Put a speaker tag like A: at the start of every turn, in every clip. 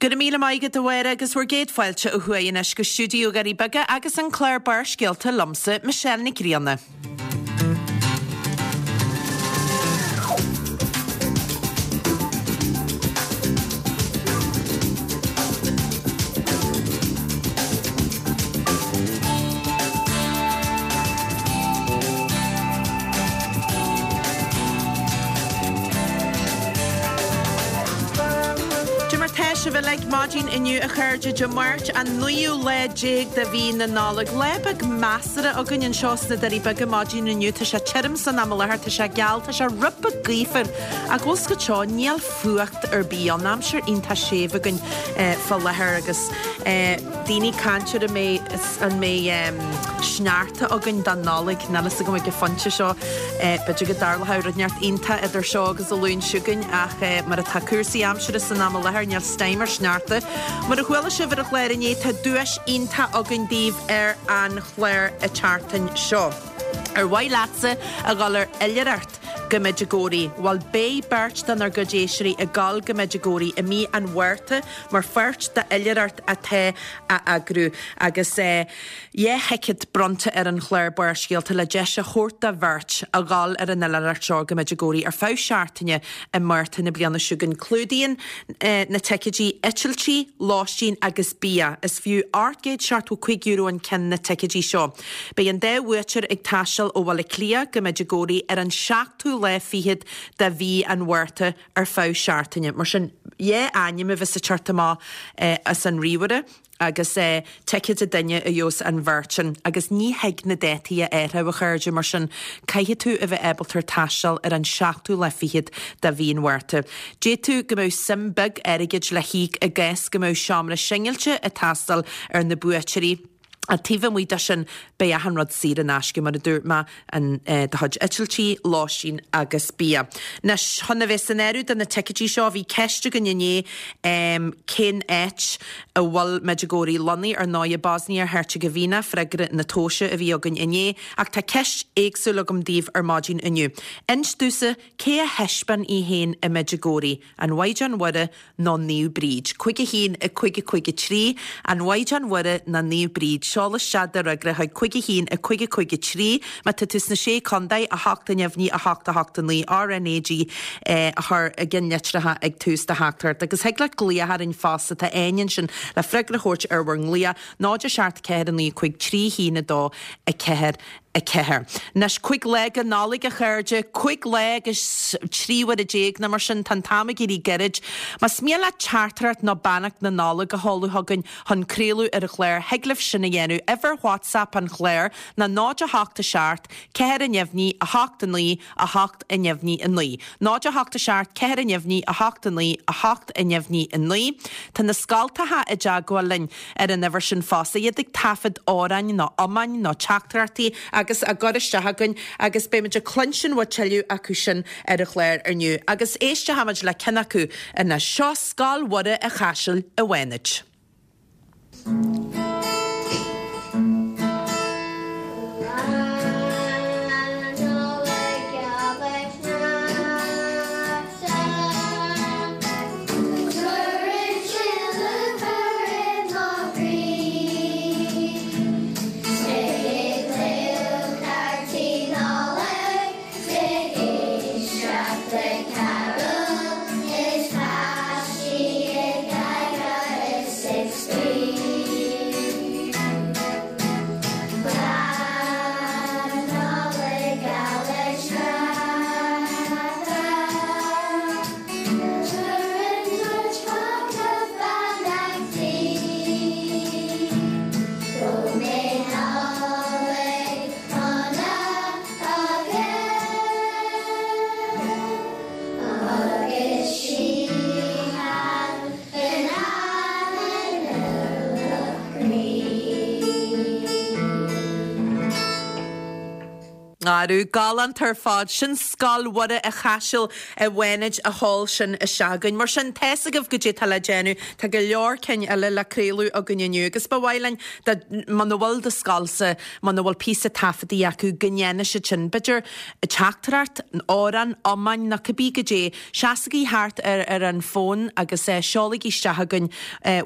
A: Go raibh míle maith agat a Mháire agus bhur gcéad fáilte ó thuaidh anois go stiúideo Dhoirí Beaga agus an clár Barrscéalta liomsa, Michelle Nic Grianna. Cad é mar tá sibh uilig maidin inniu a chairde, Dé Máirt an naoú lá déag de mhí na Nollag. Lá beag measartha againn anseo sna Doirí Beaga maidin inniu. Tá sé tirim san am i láthair, tá sé geal, tá sé rud beag gaofar ach bhfuil 's agat seo, níl fuacht ar bith ann. Aimsir iontach séimh againn fá láthair agus daoine ag caint ar an mbeidh an mbeidh sneachta againn don Nollaig. Níl fhios agam ag an phointe seo. B'fhéidir go dtarlóidh rud inteacht iontach idir seo agus an Luan seo chugainn ach mar atá cúrsaí aimsire san am i láthair níl stime ar sneachta. Mar a chuala sibh ar an chlár inné tá duais iontach againn daoibh ar an chlár an tseachtain seo. Ar mhaith leatsa a dhul ar oilithreacht go Medjugorje? Bhuel beidh beirt denár gcuid éisteoirí ag dul go Medjugorje i mí an Mhárta mar pháirt d'oilithreacht atá á eagrú agus 2 thicéad bronnta ar an chlár Barrscéalta le deis a thabhairt do bheirt a dhul ar an oilithreacht seo go Medjugorje ar feadh seachtaine i Márta na bliana seo chugainn. Clúdaíonn na ticéidí eitiltí, lóistín agus bia. Is fiú €875 an ceann na ticéidí seo. Beidh an dá bhuaiteoir ag taisteal ó Bhaile Átha Cliath go Medjugorje ar an seachtú lá fichead de mhí an Mhárta ar feadh seachtaine. Mar sin, 2 ainm a bheas ag teacht amach as an ríomhaire agus ticéad an duine a gheobhas an bheirt sin. Agus ní thig na dátaí a athrú, a chairde, mar sin caithfidh tú a bheith ábalta taisteal ar an seachtú lá fichead de mhí an Mhárta. D'fhéadfadh go mbeadh suim beag airgid le híoc i gcás go mbeadh seomra singilte ag teastáil ar na buaiteoirí. Ach taobh amuigh de sin, beidh achan rud saor in aisce, mar a dúirt mé, an, do chuid eitiltí, lóistín agus bia. Anois, chun a bheith san áireamh do na ticéidí seo, bhí ceist againn inné cén áit a bhfuil Medjugorje lonnaithe, ar ndóigh, Bosnia Herzegovina, freagra na tomhaise a bhí againn inné, ach tá ceist éagsúil agam daoibh ar maidin inniu. Inis domhsa cé a thaispeáin í féin i Medjugorje, an Mhaighdean Mhuire nó Naomh Bríd. 5 1 5 5 3, An Mhaighdean Mhuire nó Naomh Bríd. Seol isteach do fhreagra chuig 5 1 5 5 3. Má tá tú sna Sé Contae, 8 neamhní 8 8 9 RNAG a chur i gceannlitreacha ag tús do theachtaireacht. Agus thig leat glaoch orainn fosta, tá Áine ansin le freagra a thabhairt ar bhur nglaoch, 0 7 4 9 5 3 1 2 4 4. Anois, 5 lá go Nollaig, a chairde, 5 lá agus 13 uaire nó mar sin, tá an t-am ag éirí gairid. Más mian leat teachtaireacht nó beannacht na Nollag a sheoladh chugainn chun craoladh ar an chlár, thig libh sin a dhéanamh. Uimhir WhatsApp an chláir ná 0 8 7 4 neamhní 8 9 8 neamhní 9. 0 8 7 4 neamhní 8 9 8 neamhní 9. Tá na scoltacha i dteagmháil linn. ar an uimhir sin fosta, iad ag taifead amhráin nó iomáin nó teachtaireachtaí agus á gcur isteach againn agus beimid ag cluinstin uaidh tuilleadh acu sin ar an chlár inniu. Agus éistfimid le ceann acu anois. Seo Scoil Mhuire an Chaisil i bhFánaid. nGarbh. Galánta ar fad. Sin Scoil Mhuire a' Chaisil i bhFánaid a sheol sin isteach chugainn. Mar sin, tá's agaibh goidé tá le déanamh. Tá go leor cinn eile le craoladh againn inniu agus ba mhaith linn dá, muna bhfuil do scoilsa, muna bhfuil píosa taifeadtaí acu, go ndéanfaidh siad sin. B'fhéidir teachtaireacht, amhrán, iomáin nó cibé goidé. Seasaigí thart ar ar an bhfón agus seolaigí isteach chugainn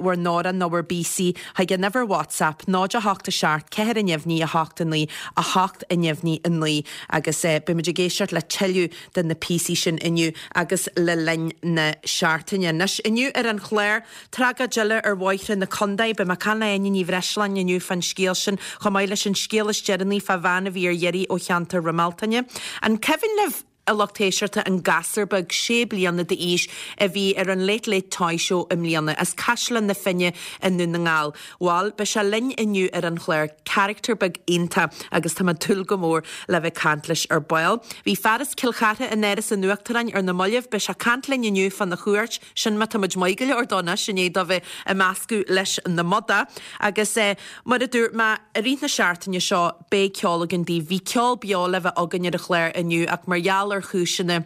A: bhur n-amhrán nó bhur bpíosaí chuig an uimhir WhatsApp 0 8 7 4 neamhní 8 9 8 neamhní 9 agus beidh muid ag éisteacht le tuilleadh de na píosaí sin inniu agus le linn na seachtaine. Anois, inniu ar an chlár, tragóid eile ar bhóithre na contae. Beidh mé ag caint le Áine Ní Bhreisleáin inniu fán scéal sin, chomh maith leis an scéal is deireanaí fá bhean a bhí ar iarraidh ó cheantar Roimh Bealtaine. An cuimhin libh? a lucht éisteachta, an gasúr beag sé bliana d'aois a bhí ar an Late Late Toy Show i mbliana, as Caisleán na Finne i nDún na nGall. Bhal, beidh sé linn inniu ar an chlár, carachtar beag iontach agus tá mé ag dúil go mór le bheith ag caint leis ar ball. Bhí fear as Cill Chartha in Áras an Uachtaráin ar na mallaibh, beidh sé ag caint linn inniu fána chuairt, sin má tá muid maith go leor dó anois i ndiaidh dó bheith ag meascadh leis na madaí. Agus mar a dúirt mé, i rith na seachtaine seo, Beidh ceol againn daoibh. Bhí ceol beo le bheith againn ar an chlár inniu ach mar gheall ar chúiseanna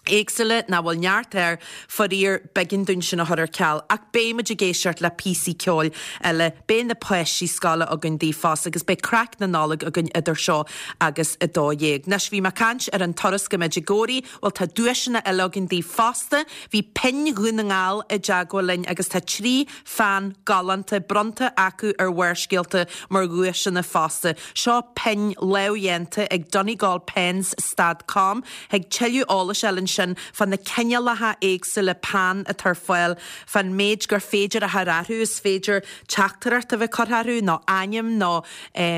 A: éagsúla, nach bhfuil neart air, faraor, b'éigean dúinn sin a chur ar ceal. Ach beidh muid ag éisteacht le píosaí ceoil eile, beidh na páistí scoile againn daoibh fosta agus beidh craic na Nollag againn idir seo agus 12. Anois, bhí mé ag caint ar an turas go Medjugorje, bhuel tá duaiseanna eile againn daoibh fosta. Bhí Pinn Dhún na nGall i dteagmháil linn agus tá 3 pheann galánta bronnta acu ar Bharrscéalta mar dhuaiseanna fosta. Seo pinn lámhdhéanta ag Donegalpens stad com. Thig tuilleadh eolais a fháil ansin fá na cineálacha éagsúla peann atá ar fáil, fán méid gur féidir a chur orthu, is féidir teachtaireacht a bheith curtha orthu nó ainm nó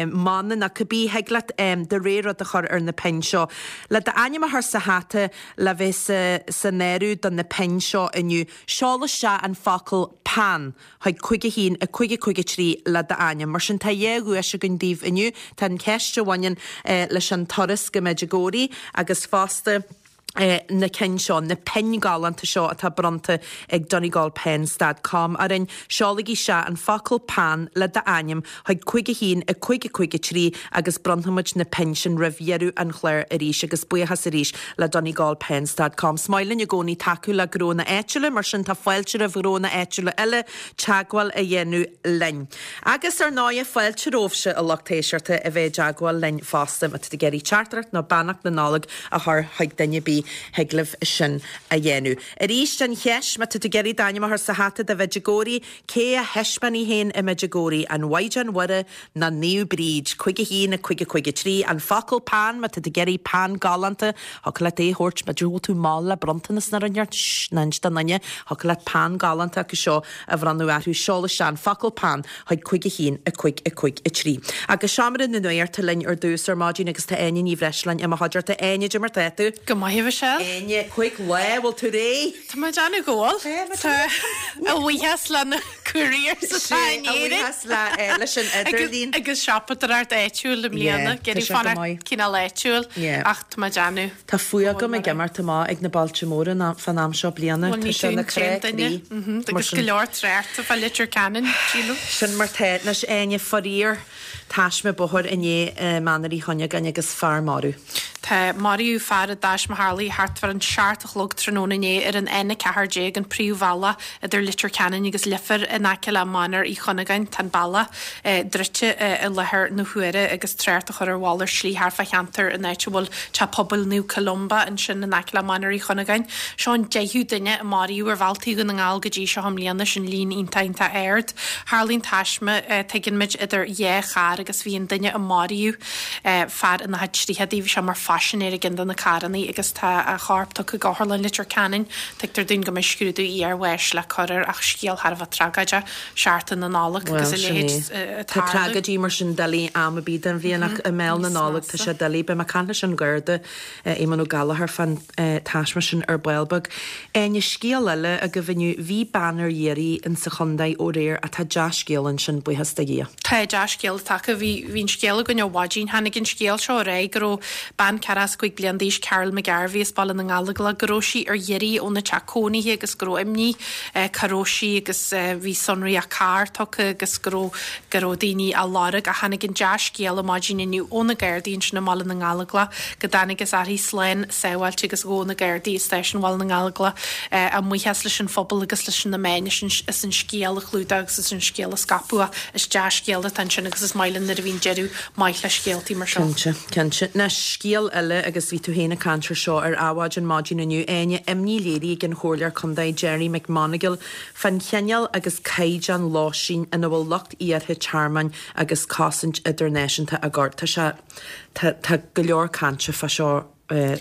A: mana nó cibé, thig leat do rogha rud a chur ar na pinn seo. Le d'ainm a chur sa hata le bheith san áireamh do na pinn seo inniu, Seol isteach an focal 'peann' chuig 5 1 5 5 3 le d'ainm. Mar sin tá dhá dhuais againn daoibh inniu. Tá an cheist a bhaineann leis an turas go Medjugorje agus fosta na cinn seo, na pinn galánta seo atá bronnta ag Donegalpens dot com orainn. Seolaigí isteach an focal 'peann' le d'ainm chuig 5 1 5 5 3 agus bronnfaimid na pinn sin roimh dheireadh an chláir arís agus buíochas arís le Donegalpens dot com. Is maith linn i gcónaí tacú le gnónna áitiúla, mar sin tá fáilte roimh ghnónna áitiúla eile teagmháil a dhéanamh linn. Agus ar ndóighe fáilte romhaibhse a lucht éisteachta a bheith i dteagmháil linn fosta má tá tú ag iarraidh teachtaireacht nó beannacht na Nollag a chur chuig duine ar bith thig libh sin a dhéanamh. Arís an cheist má tá tú ag iarraidh d'ainm a chur sa hata do Mhedjugorje, Cé a thaispeáin í féin i Medjugorje, an Mhaighdean Mhuire nó Naomh Bríd? 5 1 5 5 3 An focal peann, má tá tú ag iarraidh peann galánta, thiocfadh leat é a thabhairt, b'fhéidir go bhfuil tú mall le bronntanas nó rud inteacht, shh, ná inis d'aon duine, thiocfadh leat peann galánta acu seo a bhronnadh orthu, seol isteach an focal peann chuig 5 1 5 5 3. Agus Seomra na Nuachta linn ar dtús ar maidin agus tá Áine Ní Bhreisleáin i mo chuideachta. Áine, cad é mar tá tú?
B: Go maith, a Mhichelle.
A: Áine, 5 lá, bhfuil tú réidh?
B: Tá mé ag déanamh go bhfuil. Tá a bhuíochas le na couriers atá in Éirinn.
A: A bhuíochas leis an idirlíon.
B: Agus siopadóireacht áitiúil i mbliana.
A: Tá sé go maith.
B: Cineál áitiúil ach tá mé ag déanamh.
A: Tá fuath agam ag imeacht amach ag na bailte móra fán am seo bliana.
B: Tá sé ina chrá croí. Agus go leor tráchta fá Leitir Ceanainn, sílim.
A: Sin mar tá. Anois Áine, faraor. Taisme bóthair inné i Mainéar Uí Chuinneagáin agus fear marbh.
B: Tá, maraíodh fear i dtaisme a tharlaigh thart far an seacht a chlog tráthnóna inné ar an N14, an príomhbhealach idir Leitir Ceanainn agus Leifear in aice le Mainéar Uí Chuinneagáin. Tá an bealach druidte i láthair na huaire agus trácht á chur ar mhalairt slí thart fá cheantar an áit a bhfuil Teach Pobail Naomh Columba ansin in aice le Mainéar Uí Chuinneagáin. Seo an deichiú duine a maraíodh ar bhealtaí Dhún na nGall go dtí seo i mbliana, sin líon iontach iontach ard. Tharlaigh an taisme, tuigeann muid, idir dhá charr agus bhí an duine a maraíodh, fear ina chuid tríochadaí, bhí sé mar phaisinéir i gceann de na carrannaí agus tá a chorp tugtha go Otharlann Leitir Ceanainn. Tuigtear dúinn go mbeidh scrúdú iarbháis le cur air ach scéal thar a bheith tragóideach, Seachtain na Nollag
A: agus a leithéid ag tarlú. Tá tragóidí mar sin doiligh am ar bith den bhliain ach i mbéal na Nollag tá sé doiligh. Beidh mé ag caint leis an Gharda, Éamonn Ó Gallchóir fán taisme sin ar ball beag. Áine, scéal eile agaibh inniu, bhí bean ar iarraidh in sa chontae ó aréir ach tá dea-scéal ansin, buíochas do Dhia.
B: Tá dea-scéal atá. taca, bhí, bhí an scéal againn ó mhaidin, tháinig an scéal seo ar aghaidh go raibh bean 45 bliain d'aois, Carol McGarvey as Baile na nGallóglach, go raibh sí ar iarraidh óna teach cónaithe agus go raibh imní cá raibh sí agus bhí sonraí a carr tugtha agus go raibh, go raibh daoine á lorg ach tháinig an dea-scéala maidin inniu ó na Gardaí ansin i mBaile na nGallóglach go dtángthas uirthi slán sábháilte agus ghabh na Gardaí i Stáisiún Bhaile na nGallóglach a mbuíochas leis an phobal agus leis na meáin as an scéal a chlúdach agus as an scéal a scaipeadh ach is dea-scéal atá ansin agus is maith linn nuair a bhíonn deireadh maith le scéaltaí mar seo.
A: Cinnte, cinnte. Anois, scéal eile agus bhí tú féin ag caint ar seo ar Adhmhaidin maidin inniu, Áine, imní léirithe ag an Chomhairleoir Contae Gerry McMonagall fán chineál agus caighdeán lóistín ina bhfuil lucht iarrtha tearmainn agus cosaint idirnáisiúnta á gcur. Tá sé, tá, tá go leor cainte fá seo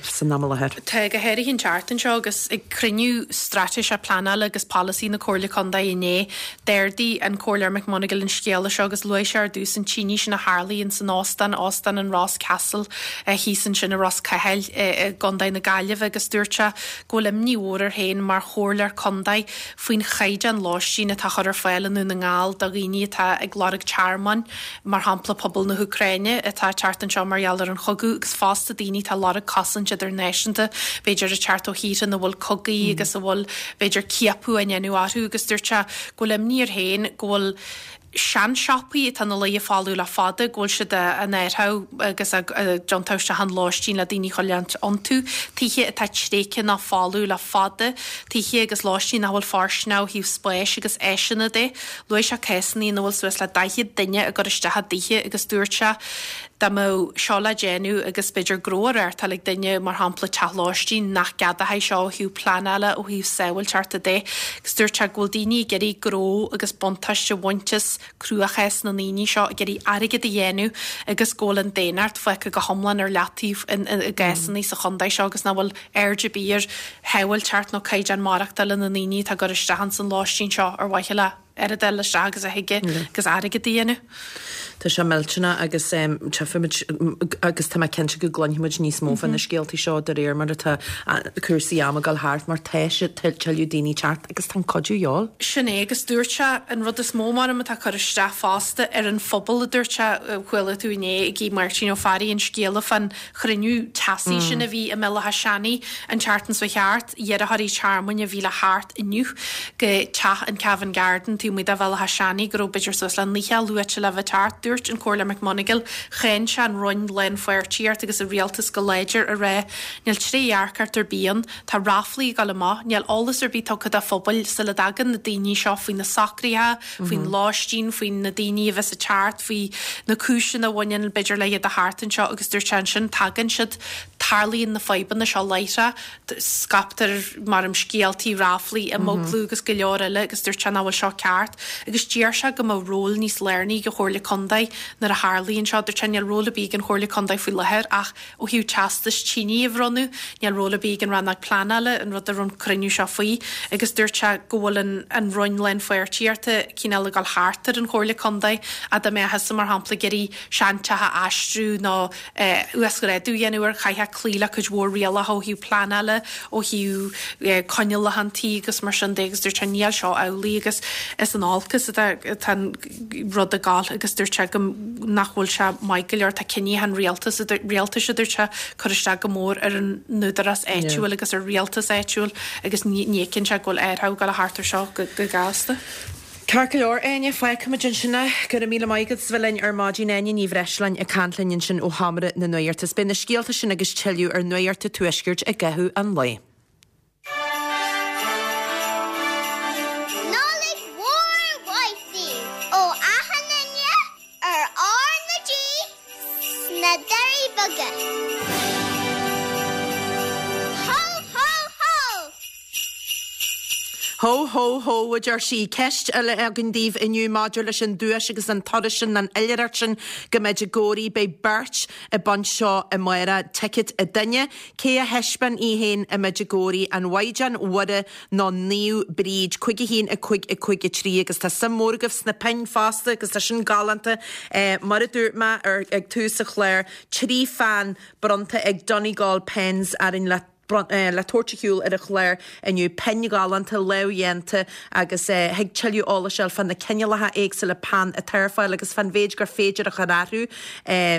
A: san am i láthair.
B: Tá, go háirithe an tseachtain seo agus ag cruinniú straitéiseach pleanála agus polasaí na Comhairle Contae inné, d'ardaigh an Comhairleoir McMonagall an scéala seo agus luaigh sé ar dtús an tine sin a tharlaigh ins an óstán, Óstán an Ross Castle, thíos ansin i Ros Cathail i gContae na Gaillimhe agus dúirt sé go bhfuil imní mhór air féin mar Chomhairleoir Contae faoin chaighdeán lóistín atá á chur ar fáil i nDún na nGall do dhaoine atá ag lorg tearmainn. mar shampla pobal na hÚcráine atá ag teacht anseo mar gheall ar an chogadh agus fosta daoine atá ag lorg cosaint idirnáisiúnta, b'fhéidir ag teacht ó thíortha ina bhfuil cogaí agus a bhfuil b'fhéidir ciapadh á ndéanamh orthu agus dúirt sé go bhfuil imní air féin go bhfuil seansiopaí atá ina luí folamh le fada, go bhfuil siad á n-áireamh agus á dtiontú isteach in lóistín le daoine a choinneáilt iontu, tithe atá tréigthe nó folamh le fada, tithe agus lóistín nach bhfuil fóirsteanach ó thaobh spáis agus áiseanna de. Luaigh sé cásanna ina bhfuil suas le 40 duine á gcur isteach i dtithe agus dúirt sé dá mbeadh seo le déanamh agus b'fhéidir gnó á reáchtáil ag duine, mar shampla teach lóistín, nach gceadófaí seo ó thaobh pleanála, ó thaobh sábháilteachta de. Agus dúirt sé go bhfuil daoine ag iarraidh gnó agus buntáiste a bhaint as cruachás na ndaoine seo, ag iarraidh airgead a dhéanamh agus go bhfuil an daonnacht fágtha go hiomlán ar leataobh i gcásanna sa chontae seo agus nach bhfuil aird ar bith ar shábháilteacht nó caighdeán maireachtála na ndaoine atá ag cur isteach ins an lóistín seo ar mhaithe le oiread a fháil isteach agus a thig agus airgead a dhéanamh.
A: Tá sé millteanach agus tchífimid agus tá mé cinnte go gcluinfimid níos mó fá na scéaltaí seo de réir mar atá cúrsaí ama ag dul thart mar tá sé tuilleadh daoine ag teacht agus tá an cuidiú de dhíobháil.
B: Sin é agus dúirt sé an rud is mó maram atá ag cur isteach fosta ar an phobal a dúirt sé, chuala tú inné ag Máirtín Ó Fearraigh an scéala fán chruinniú teasaí sin a bhí i mBéal Átha Seanaidh an tseachtain seo thart, iarrthóirí tearmainn a bhí le theacht inniu go teach an Cavan Garden taobh amuigh de Bhéal Átha Seanaidh go raibh b'fhéidir suas le 90 luaite le bheith ag teacht. Dúirt an Comhairleoir McMonagall, cháin sé an Roinn Lánpháirtíocht agus an Rialtas go láidir a rá níl trédhearcacht ar bith ann, tá ráflaí ag dul amach, níl eolas ar bith tugtha do phobail sula dtagann na daoine seo faoi na socruithe, faoin lóistín, faoi na daoine a bheas ag teacht, faoi na cúiseanna a bhaineann, b'fhéidir, le iad a theacht anseo agus dúirt sé ansin, tagann siad, tarlaíonn na fadhbanna seo láithreach, scaiptear, maram, scéaltaí, ráflaí, imeaglú agus go leor eile agus dúirt sé nach bhfuil seo ceart agus d'iarr sé go mbeadh ról níos lárnaí ag an Chomhairle Contae nuair a tharlaíonn seo. Dúirt sé níl ról ar bith ag an Chomhairle Contae faoi láthair ach Ó thaobh teastais tine a bhronnadh, níl ról ar bith ag an Rannóg Pleanála, an rud a raibh an cruinniú seo faoi, agus dúirt sé go bhfuil an an Roinn Lánpháirtíochta cineál ag dul thart ar an Chomhairle Contae, ach dá mbeadh thusa, mar shampla, ag iarraidh seanteach a aistriú nó uasghrádú a dhéanamh air, chaithfeá cloí le cuid mhór rialacha ó thaobh pleanála, ó thaobh coinníollacha an tí agus mar sin de agus dúirt sé níl seo amhlaidh agus is in olcas atá an rud ag gabháil agus dúirt sé go nach bhfuil sé maith go leor, tá cinntí an rialtas, rialtais a dúirt sé, cur isteach go mór ar an n-údarás áitiúil agus ar rialtas áitiúil agus ní fheiceann sé go bhfuil athrú ag dul thart ar seo go gasta.
A: Ceart go leor, Áine, fágfaimid ansin é. Go raibh míle maith agat as bheith linn ar maidin. Áine Ní Bhreisleáin ag caint linn ansin ó Sheomra na Nuachta. Beidh na scéalta sin agus tuilleadh ar Nuacht an Tuaiscirt i gcaitheamh an lae.
C: Nollaig mhór mhaith daoibh ó achan duine ar R na G sna Doirí Beaga. Hó hó hó!
A: Hó hó hó, a deir sí. Ceist eile againn daoibh inniu maidir leis an duais agus an turas sin, an oilithreacht sin go Medjugorje. Beidh beirt ag baint seo amárach, ticket an duine. Cé a thaispeáin í féin i Medjugorje, an Mhaighdean Mhuire nó Naomh Bríd? 5 1 5 5 3 Agus tá suim mhór agaibh sna pinn fosta agus tá sin galánta. Mar a dúirt mé ar ag tús an chláir, 3 pheann bronnta ag Donegal Pens orainn le. Le tabhairt ar shiúl ar an chlár inniu, pinn ghalánta, lámhdhéanta agus thig tuilleadh eolais a fháil fá na cineálacha éagsúla peann atá ar fáil agus fán mhéid gur féidir a chur orthu.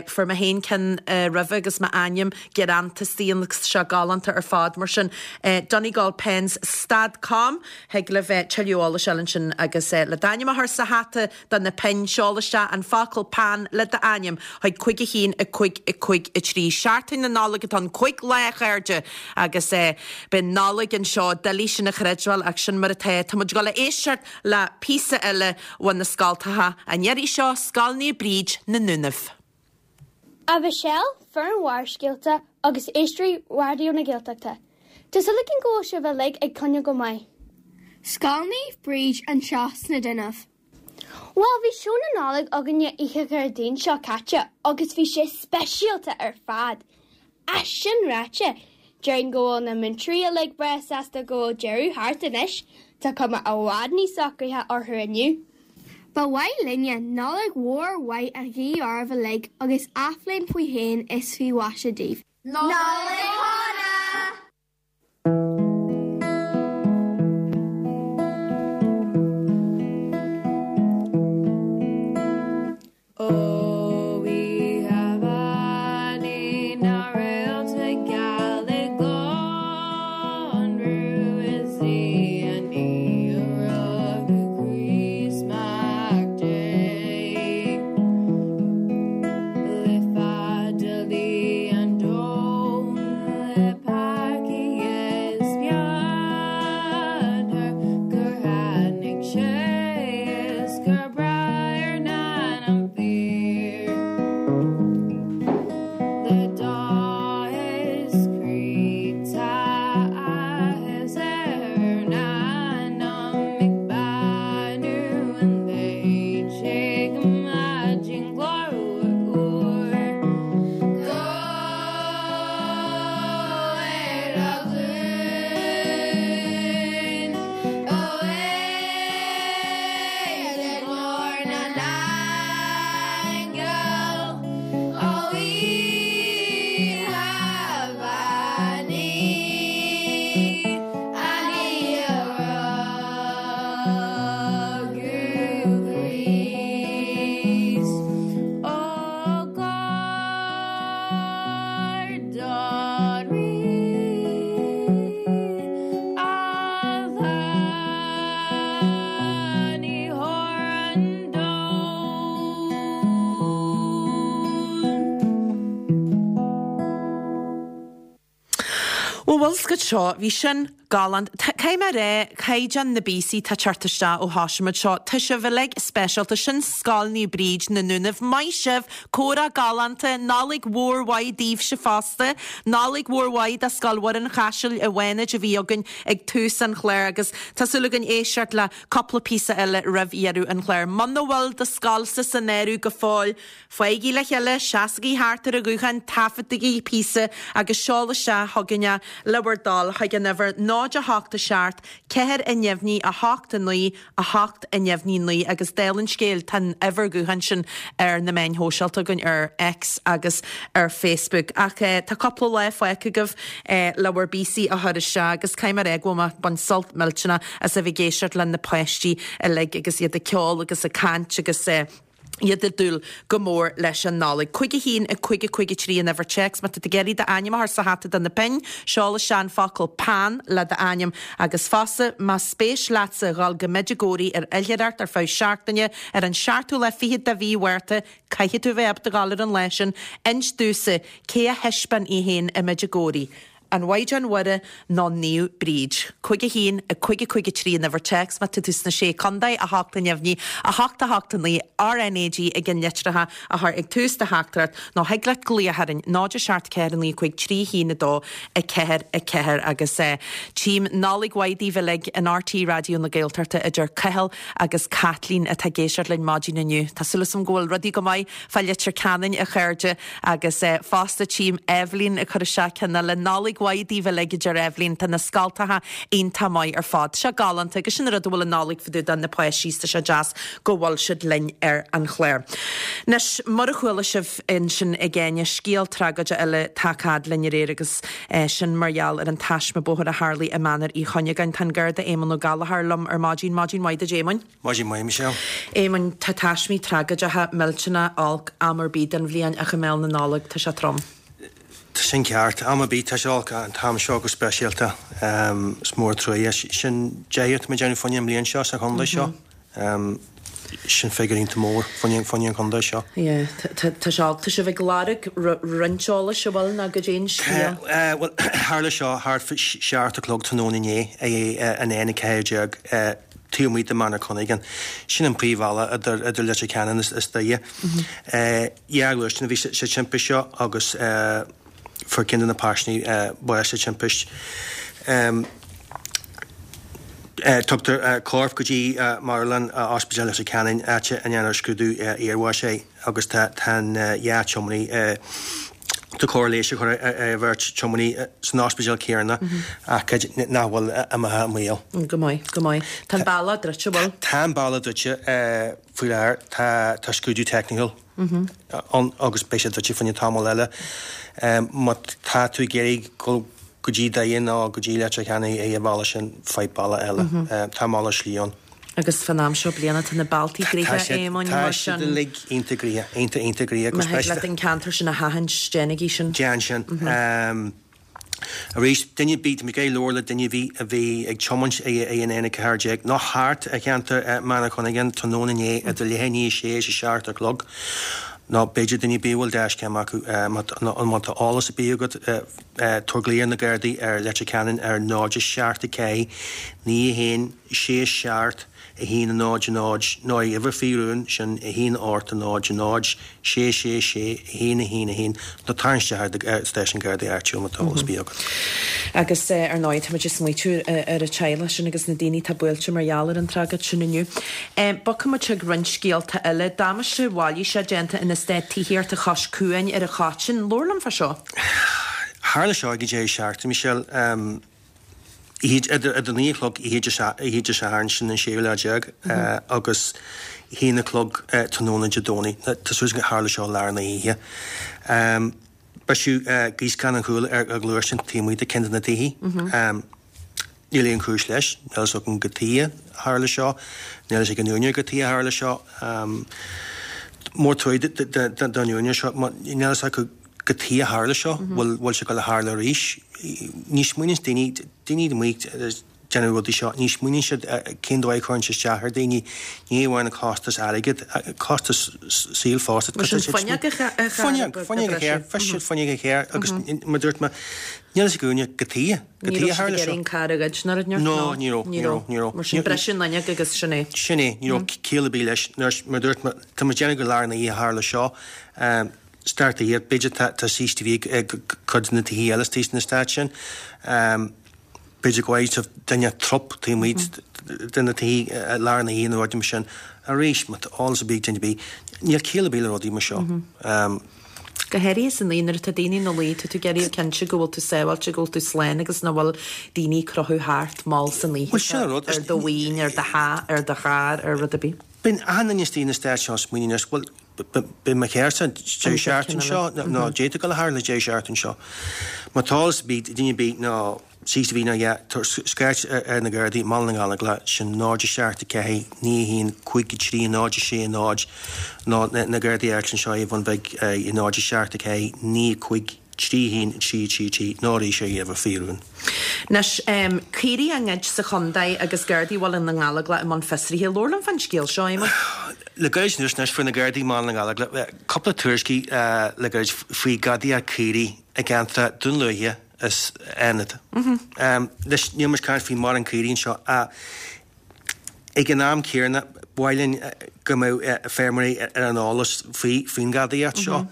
A: Fuair mé féin ceann roimhe agus m'ainm greanta istigh ann agus tá sé galánta ar fad. Mar sin, Donegalpens stad com, thig libh tuilleadh eolais a fháil ansin agus le d'ainm a chur sa hata do na pinn, seol isteach an focal 'peann' le d'ainm chuig 5 1 5 5 3. Seachtain na Nollag atá ann, 5 lá a chairde agus beidh Nollaig anseo, doiligh sin a chreidbheáil ach sin mar atá. Tá muid ag dul a éisteacht le píosa eile ó na scoltacha, an iarraidh seo Scoil Naomh Bríd, na Dúnaibh.
D: A Mhichelle, foireann Bharrscéalta agus éisteoirí Raidió na Gaeltachta. Tá súil againn go bhfuil sibh uilig ag coinneáil go maith.
E: Scoil Naomh Bríd anseo sna Dúnaibh.
D: Bhuel, bhí seó na Nollag againne oíche Dhéardaoin seo caite agus bhí sé speisialta ar fad. Ach sin ráite, déarfainn go bhfuil na múinteoirí uilig breá sásta go bhfuil deireadh thart anois, tá cuma i bhfad níos socraithe orthu inniu.
E: Ba mhaith linne Nollaig mhór mhaith a ghuí oraibh uilig agus athbhliain faoi shéan is faoi mhaise daoibh.
C: Nollaig Shona!
A: Bhuel, bhfuil 's agat seo, bhí sin galánta. Caithfidh mé a rá, caighdeán na bpíosaí atá ag teacht isteach ó thosaigh muid seo, tá sibh uilig speisialta. Sin Scoil Naomh Bríd, na Dúnaibh. Maith sibh! Comhrá galánta. Nollaig mhór mhaith daoibhse fosta. Nollaig mhór mhaith do Scoil Mhuire an Chaisil i bhFánaid a bhí againn ag tús an chláir agus tá súil againn éisteacht le cúpla píosa eile roimh dheireadh an chláir. Muna bhfuil do scoilsa san áireamh go fóill, Faighigí le chéile, seasaigí thart ar an ghuthán, taifeadaigí píosa agus seol isteach chugainn é le bhur dtoil chuig an uimhir 0 8 7 4 neamhní 8 9 8 neamhní 9 agus dála an scéil tá an uimhir ghutháin sin ar na meáin shóisialta againn ar X agus ar Facebook. Ach tá cúpla lá fágtha agaibh le bhur bpíosaí a chur isteach agus caithfidh mé a rá go bhfuil mé ag baint sult millteanach as a bheith ag éisteacht le na páistí uilig agus iad ag ceol agus ag caint agus iad ag dúil go mór leis an Nollaig. 5 1 5 5 3 an uimhir téacs. Má tá tú ag iarraidh d'ainm a chur sa hata do na pinn, seol isteach an focal 'peann' le d'ainm agus fosta más spéis leatsa dhul go Medjugorje ar oilithreacht ar feadh seachtaine ar an seachtú lá fichead de mhí Mhárta, caithfidh tú a bheith ábalta dhul ar an lá sin, inis domhsa cé a thaispeáin í féin i Medjugorje. An Mhaighdean Mhuire nó Naomh Bríd? 5 1 5 5 3 an uimhir téacs má tá tú sna Sé Contae, 8 neamhní, 8 8 9, RNAG ag an litreacha a chur ag tús do theachtaireacht nó thig leat glaoch orainn 0 7 4 9 5 3 1 2 4 4 agus tchím Nollaig mhaith daoibh uilig in RTÉ Raidió na Gaeltachta a deir Cathal agus Caitlín atá ag éisteacht linn maidin inniu. Tá súil agam go bhfuil rudaí go maith fá Leitir Ceanainn a chairde. Agus fosta tchím Eibhlín ag cur isteach ceann eile. Nollaig. Nollaig mhaith daoibh uilig, a deir Eibhlín. Tá na scoltacha iontach maith ar fad. Tá sé galánta agus sin an rud a bhfuil an Nollaig fá dtaobh de, na páistí is tá sé deas go bhfuil siad linn ar an chlár. Anois, mar a chuala sibh ansin ag Áine, scéal tragóide eile tagtha fhad linn aréir agus sin mar gheall ar an taisme bóthair a tharlaigh i Mainéar Uí Chuinneagáin. Tá an Garda Éamonn Ó Gallchóir liom ar maidin. Maidin mhaith duit Éamoinn.
F: Maidin mhaith, Michelle.
A: Éamoinn, tá taismí tragóideacha, millteanach, olc am ar bith den bhliain ach i mbéal na Nollag tá sé trom.
F: Tá sin ceart. Am ar bith tá sé olc ach an t-am seo go speisialta. Is mór an truaighe. Sin deichiú atá muid ag déanamh fá choinne an mbliain seo sa chontae seo. Sin figiúr iontach mór fá choinne an chontae seo.
A: Yeah, tá sé olc. Tá sibh ag lorg roinnt eolais, an bhfuil, nó goidé an scéal?
F: Bhuel, tharla seo thart fá 7 a chlog tráthnóna inné ar an N14 taobh amuigh de Mainéar Chuinneagáin. Sin an príomhbhealach idir Leitir Ceanainn is Doire. Dhá ghluaisteán a bhí sa timpist seo agus fuair ceann de na paisinéirí bás sa timpist. Tugtar corp go dtí marthanlann Ospidéal Leitir Ceanainn, áit a ndéanfar scrúdú iarbháis air agus tá an dhá tiománaí, tá cóir leighis á chur ar an bheirt tiománaí san ospidéal céanna ach nach bhfuil imithe i mbaol.
A: Go maith, go maith. Tá an bealach druidte, an bhfuil?
F: Tá an bealach druidte faoi láthair. Tá scrúdú teicniúil ann agus beidh sé druidte fá choinne tamall eile. Má tá tú ag iarraidh dul go dtí Doire nó go dtí Leitir Ceanainn ar an bhealach sin, faigh bealach eile. Tá malairt slí ann.
A: Agus fán am seo bliana tá na bealtaí gnoitheach, a Éamoinn,
F: mar sin. Tá siad uilig iontach gnoitheach, iontach, iontach gnoitheach.
A: Má thig leat an ceantar sin a sheachaint, déanaigí sin.
F: Déan sin. Arís, duine ar bith, tá mé ag iarraidh labhairt le duine ar bith a bhí ag tiomáint ar an N14 nó thart ar cheantar Mainéar Chuinneagáin tráthnóna inné idir leath i ndiaidh a sé is a seacht a chlog, nó b'fhéidir duine ar bith a bhfuil dashcam acu, má tá eolas ar bith agat, tabhair glao ar na Gardaí ar Leitir Ceanainn ar 0 7 4 9 1 6 7 1 0 0 nó ar uimhir faoi rún, sin 1 8 0 0 6 6 6 1 1 1 nó tarraing isteach ar stáisiún Gardaí áitiúil má tá eolas ar bith agat.
A: Agus ar ndóigh táimid ag smaoitiú ar an teaghlach sin agus na daoine atá buailte mar gheall ar an tragóid sin inniu. Bogfaidh muid chuig roinnt scéalta eile. Damáiste mhailíseach déanta in eastát tithíochta Chois Cuain ar an Choitín. Labhair liom fá seo.
F: Tharla seo ag an deireadh seachtaine, Michelle. Idir 9 a chlog oíche Dé Sathairn, sin an séú lá déag, agus a haon a chlog tráthnóna Dé Domhnaigh. Tá súil agam gur tharla seo i lár na hoíche. Briseadh gíoscán an chúil ar ghluaisteán taobh amuigh de ceann de na tithe. Níl aon chúis leis. Níl a fhios againn cad chuige a tharla seo. Níl a fhios ag an úinéir cad chuige a tharla seo. Mór truaighe don úinéir seo. Níl a fhios acu cad chuige a tharla seo, bhfuil bhfuil sé ag dul a tharlú arís. Ní smaoiníonn daoine, daoine amuigh ag déanamh rudaí seo, ní smaoiníonn siad cén dóigh a chuireann sé isteach ar daoine, ní amháin an costas airgid, costas saoil fosta.
A: Mar sin fuinneog a
F: Fuinneog, fuinneog a chur, bhris siad fuinneog a chur agus mar dúirt mé, níl a fhios ag an úinéir cad chuige, cad
A: Ní
F: chuige a
A: raibh siad
F: tharla
A: ag
F: seo.
A: iarraidh an carr a ghoid nó rud
F: No, ní raibh, ní raibh, ní raibh.
A: Mar sin briseadh an fhuinneog agus sin é.
F: Sin é, ní raibh ciall ar bith leis. Mar dúirt mé, tá muid ag déanamh gur i lár na hoíche a tharla seo. Start the year, b'fhéidir tá tá CCTV ag cuid de na tithe eile istigh san eastát sin. B'fhéidir go bhfaighidh sibh duine trup taobh amuigh de na tithe i lár na hoíche nó rudaí mar sin. Arís, má tá eolas ar bith ag duine ar bith, níl ciall ar bith le rudaí mar seo.
A: Go háirithe san oíche nuair atá daoine ina luí, tá tú ag iarraidh cinnte go bhfuil tú sábháilte, go bhfuil tú slán agus nach bhfuil daoine ag crochadh thart mall san oíche
F: Bhuel, sin an rud.
A: ar do mhaoin, ar do theach, ar do charr, ar rud ar bith.
F: Bíonn achan duine istigh in eastát seo ag smaoineamh anois, bhuel, Beidh mo charrsa deireadh seachtaine seo nó d'fhéadfadh dul a tharla deireadh seachtaine seo. Má tá eolas ar bith ag duine ar bith nó CCTV nó a dhath, scairt ar na Gardaí i mBaile na nGallóglach, sin 0 7 4 9 1 5 3 0 6 0 nó na Gardaí áitiúla anseo ar Bhun Bhig 0 7 4 9 5 3 1 3 3 3 nó arís ar uimhir faoi rún.
A: Anois, caoirigh á ngoid sa chontae agus Gardaí Bhaile na nGallóglach i mbun fiosraithe. Labhair liom fán scéal seo, Éamonn.
F: Le gairid anuas anois fuair na Gardaí i mBaile na nGallóglach cúpla tuairiscí le gairid faoi gadaíocht caoirigh i gceantar Dún Lúiche is Fhánada. Anois níl muid ag caint faoi mórán caoirigh anseo ach ag an am céanna ba mhaith linn go mbeadh feirmeoirí ar an eolas faoin ghadaíocht seo.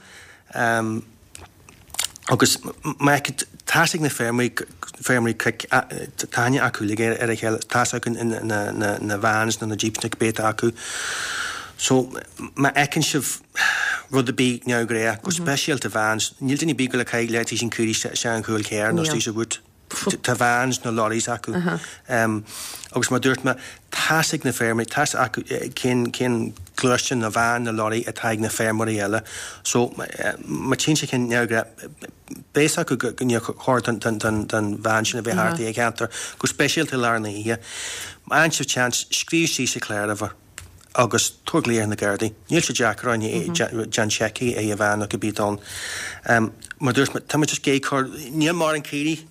F: Agus má tá's ag na feirmeoirí, feirmeoirí cnoic, tá aithne acu uilig ar a chéile, tá's acu na vans nó na jeeps nó cibé atá acu. So má fheiceann sibh. Rud ar bith neamhghnách, go speisialta vans, níl duine ar bith ag goil ag caitheamh leataobh an caoirigh isteach an chúl carr nó istigh sa bhoot. Tá vans nó lorries acu. Agus mar a dúirt mé, tá's ag na feirmeoirí, tá's acu cén cén gluaisteán nó veain nó lorry atá ag na feirmeoirí eile. So má tchíonn siad ceann neamhghnách, beidh fhios acu go níor chóir don veain sin a bheith thart i gceantar, go speisialta i lár na hoíche. Má fhaigheann sibh seans, scríobh síos an cláruimhir agus tabhair glaoch ar na Gardaí. Níl sé deacair orainn déan seic ar an veain nó cibé atá ann. Mar a dúirt mé, tá muid just ag cur, níl mórán caoirigh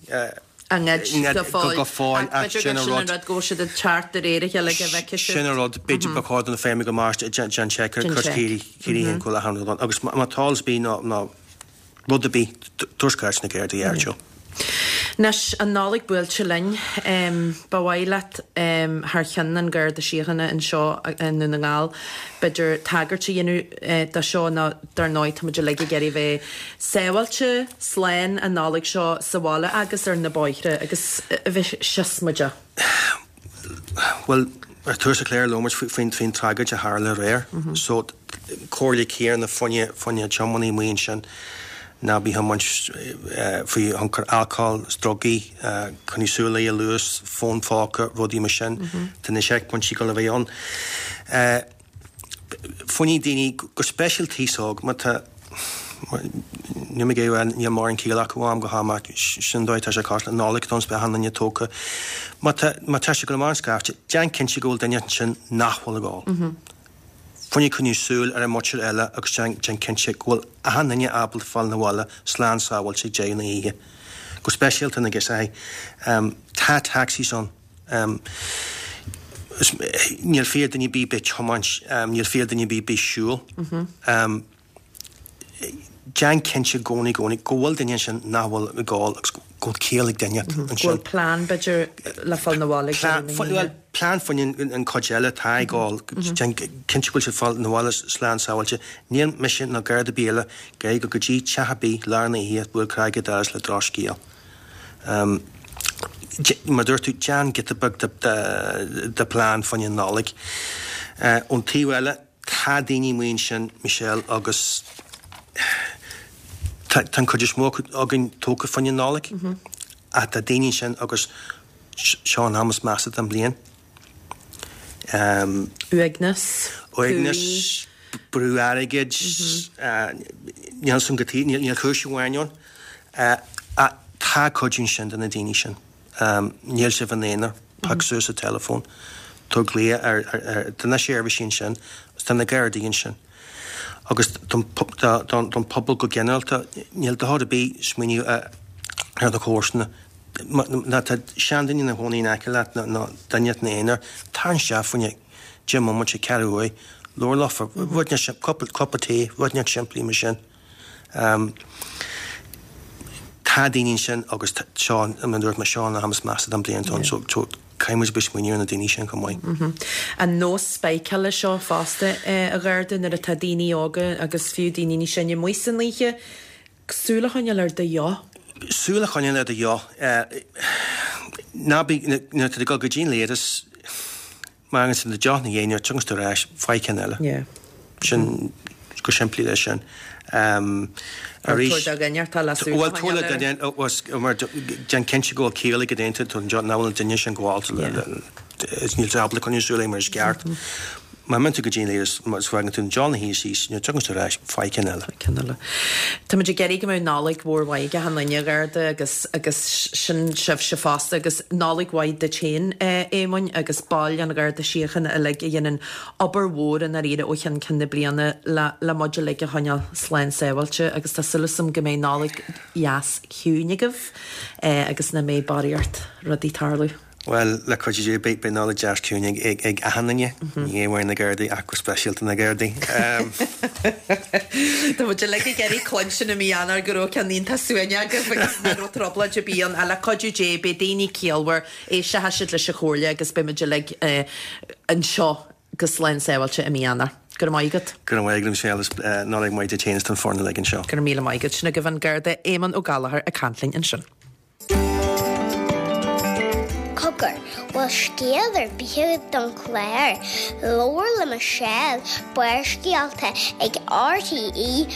A: á ngoid go fóill. Go fóill, ach sin an rud. B'fhéidir gur sin an rud go bhfuil siad ag teacht de réir a chéile go bhfeicfidh siad.
F: Sin an rud, b'fhéidir ba chóir do na feirmeoirí go mairt déan seic ar caoirigh, caoirigh an cúl achan rud ann. Agus má tá eolas ar bith nó rud ar bith, tabhair scairt na Gardaí ar Joe.
A: Anois, an Nollaig buailte linn, ba mhaith leat, thar cheann an Gharda Síochána anseo i nDún na nGall, b'fhéidir tagairt a dhéanamh do seo nó dar ndóigh tá muid uilig ag iarraidh bheith sábháilte, slán an Nollaig seo sa bhaile agus ar na bóithre agus a bheith siosmaideach.
F: Bhuel, ar tús an chláir labhair muid faoin faoin tragóid a tharla aréir. So, comhairle céanna fá choinne tiománaí amuigh ansin, ná bí ag tiomáint faoi thionchar alcóil is drugaí, coinnigh súil ar an luas, fón phóca, rudaí mar sin. Tá na seicphointí ag dul a bheith ann. Fá choinne daoine, go speisialta aos óg, má tá, níl mé ag rá, níl mórán ciall acu ó am go ham ach sin an dóigh atá sé cosúil, an Nollaig don beidh achan duine tógtha. Má tá, má tá sé ag dul amach an scaifte, déan cinnte go bhfuil duine ansin nach bhfuil ag ól. Fá choinne coinniú súil ar an muintir eile agus déan, déan cinnte go bhfuil achan duine ábalta fáil 'na bhaile slán sábháilte ag deireadh na hoíche. Go speisialta na girseachaí. Tá taxis ann. Níl fiacha duine ar bith bheith ag tiomáint, níl fiacha duine ar bith bheith ag siúl. Déan cinnte i gcónaí, gcónaí, go bhfuil duine ansin nach bhfuil ag ól agus go bhfuil ciall ag duine ansin.
A: Go bhfuil plean, b'fhéidir, le fáil 'na bhaile ag deireadh na hoíche.
F: Plean fá choinne an chuid eile atá ag ól. Déan cinnte go bhfuil siad ag fáil 'na bhaile slán sábháilte. Níl mise ná Garda ar bith eile ag iarraidh dul go dtí teach ar bith lár na hoíche bualadh cnaig ar an doras le drochscéal. Mar a dúirt tú, déan giota beag de plean fá choinne an Nollaig. Ón taobh eile, tá daoine amuigh ansin, Michelle, agus tá an chuid is mó againn tógtha fá choinne an Nollaig, ach tá daoine ansin agus seo an am is measa den bhliain.
A: Uaigneas.
F: Uaigneas, brú airgid, níl san go taobh, níl cúis amháin ann. Ach tá cuidiú ansin do na daoine sin. Níl sibh ina aonar, pioc suas an teileafón, tabhair glaoch ar, tá na seirbhísí ansin, agus tá na Gardaí ansin. Agus don pobal go ginearálta, níl dochar ar bith smaoineamh ar do chomharsana. Má tá seanduine ina chónaí in aice leat nó duine ina aonar, tar isteach fá choinne 10 mbomaite, ceathrú uair, labhair leofa, rud inteacht, cupa tae, rud inteacht simplí mar sin. Tá daoine ansin agus seo, mar a dúirt mé, seo an am is measa den bhliain so caithfidh muid a bheith ag smaoineamh ar na daoine sin chomh
A: maith. An nós spáiceála seo fosta, a Gharda, nuair atá daoine óga agus fiú daoine níos sine amuigh san oíche, Súil a choinneáil ar do dheoch.
F: Súil a choinneáil ar do dheoch. Ná bí, nuair atá tú ag dul go dtí an leithreas, má fhágann tú do dheoch ina dhiaidh, nuair a thiocfas tú ar ais, faigh ceann eile.
A: Yeah.
F: Sin, go simplí leis sin.
A: Arís. Tabhair do dhuine atá le súil a
F: choinneáil air. Bhuel, tabhair le duine, mar déan cinnte go bhfuil ciall ag an duine, nach bhfuil an duine sin gabhálta, níl tú ábalta coinneáil súil air mar is ceart. Má imíonn tú go dtí an leithreas, má fhágann tú an deoch ina shuí síos, nuair a thiocfas tú ar ais, faigh ceann eile.
A: Faigh ceann eile. Tá muid ag iarraidh go mbeadh Nollaig mhór mhaith ag achan duine, a Gharda, agus, agus sin sibhse fosta, agus Nollaig mhaith duit féin, a Éamoinn, agus baill an Gharda Síochána uilig a dhéanann obair mhór i ndáiríre ó cheann ceann na bliana le, le muid uilig a choinneáil slán sábháilte, agus tá súil agam go mbeidh Nollaig dheas ciúin agaibh, agus nach mbeidh barraíocht rudaí ag tarlú.
F: Bhuel, le cuidiú Dé, beidh Nollaig deas ciúin ag achan duine, ní hamháin na Gardaí ach go speisialta na Gardaí.
A: Tá muid uilig ag iarraidh cluinstin i mí Eanáir go raibh ceann iontach suaimhneach agaibh agus nach raibh trioblóid ar bith ann. Ach le cuidiú Dé, beidh daoine ciallmhar, éistfidh siad leis an chomhairle agus beidh muid uilig anseo go slán sábháilte i mí Eanáir. Go raibh maith agat.
F: Go raibh maith agat, Michelle, is Nollaig mhaith duit féin is don foireann uilig anseo.
A: Go raibh míle maith agat. Sin agaibh an Garda Éamonn Ó Gallchóir ag caint linn ansin.
C: Fógair, Bhfuil scéal ar bith agat don chlár? Labhair le Michelle, Barrscéalta ag rte.ie.